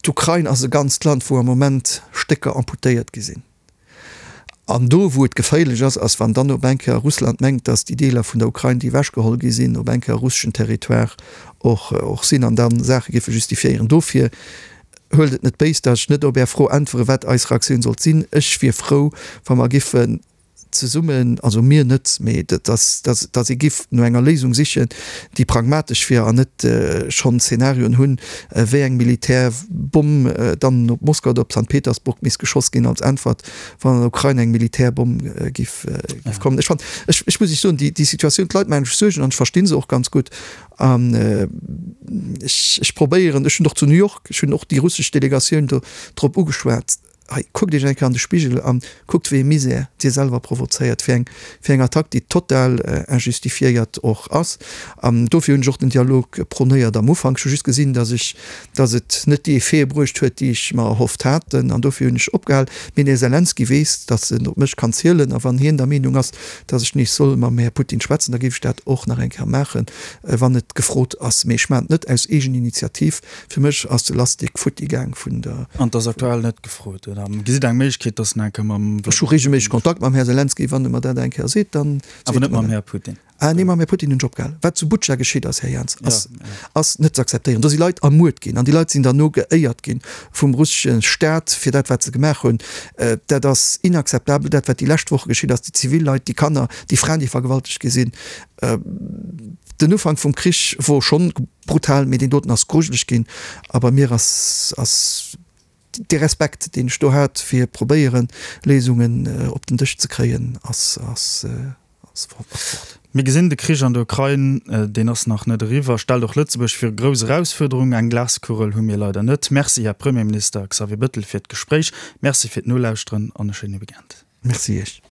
D'Ukrain ass e ganzt Land, wou am Moment Stécker amputéiert gi sinn. An do, wou et geféierlech ass, ass, wann dann op eng Kéier Russland mengt, datt déi Deeler vun der Ukrain, déi ewechgeholl gi sinn, op eng Kéier russeschen Territoire och och sinn an da Saache géife justifiéieren. Dofir huelt et net béis, datt ech net op Är Fro äntweren, wat eis Reaktioun sollt sinn. Ech wier frou, wa mer giffen zesummen, also mir net, mee datt datt ee giff no enger Léisung sichen, déi pragmatesch wier an net schonn Szenarioen hunn, wéi eng Militärbomm dann op Moskau oder op Sankt Petersburg misst geschoss ginn als Äntwert, wann an der Ukrain eng Militärbomm giff giff kommen. Ech fannen, ech ech muss Iech soen, déi déi Situatioun, d'Leit maachen sech Suergen an ech versti se och ganz gutt an ech ech probéieren, ech hunn och zu New York, ech hunn och déi russesch Delegatioun do drop ugeschwat, Hei, kuckt Iech eng Kéier an de Spigel an kuckt, wéi ee Misär Dir selwer provozéiert fir eng, fir eng Attack, déi total injustifiéiert och ass. An dofir hunn ech och den Dialog prônéiert am Ufank. Ech hu just gesinn, dass ech, dass et net déi Effete bruecht huet, déi ech mer erhofft hat, an dofir hunn ech opgehal. Mee den Här Selenskyj weess, dass en op mech kann zielen. A wann hien der Meenung ass, dass ech nees soll mam Här Putin schwätzen, da géif ech dat och nach eng Kéier maachen, wann et gefrot ass. Mee ech maachen et net aus Eegeninitiativ. Fir mech ass de Lastik futti gaang vun der. An 't ass aktuell net gefrot, oder gesitt Der eng Méiglechkeet, dass en eng Kéier mam. Ech hu regelméisseg Kontakt mam Här Selenskyj. Wann e mer dat eng Kéier seet, dann seet Awer net mam Här Putin? Ah nee, mam Här Putin hunn ech opgehal. Wat zu Butscha geschitt ass, Här Jans, ass, ass net ze akzeptéieren. Do si Leit ermuert ginn an déi Leit sinn derno geéiert ginn vum russesche Staat fir dat, wat se gemaach hunn. Dat ass inakzeptabel, dat wat déi lescht Woche geschitt ass, déi zivil Leit, déi Kanner, déi Fraen, déi vergewaltegt gi sinn. Den Ufank vum Krich wor schonn Brutal, mee deen doten ass grujeleg ginn a bei mir ass ass dee Respekt deen ech do hat fir probéieren Léisungen op den Dësch ze kréien ass ass ass fort. Mir gesinn, de Krich an der Ukrain, deen ass nach net eriwwer, stellt och Lëtzebuerg viru grouss Erausfuerderungen. Eng Glaskugel hu mir leider net. Merci, Här Premierminister Xavier Bettel, fir d'Gespréich. Merci fir d'Nolauschteren an e schéine Weekend. Merci Iech.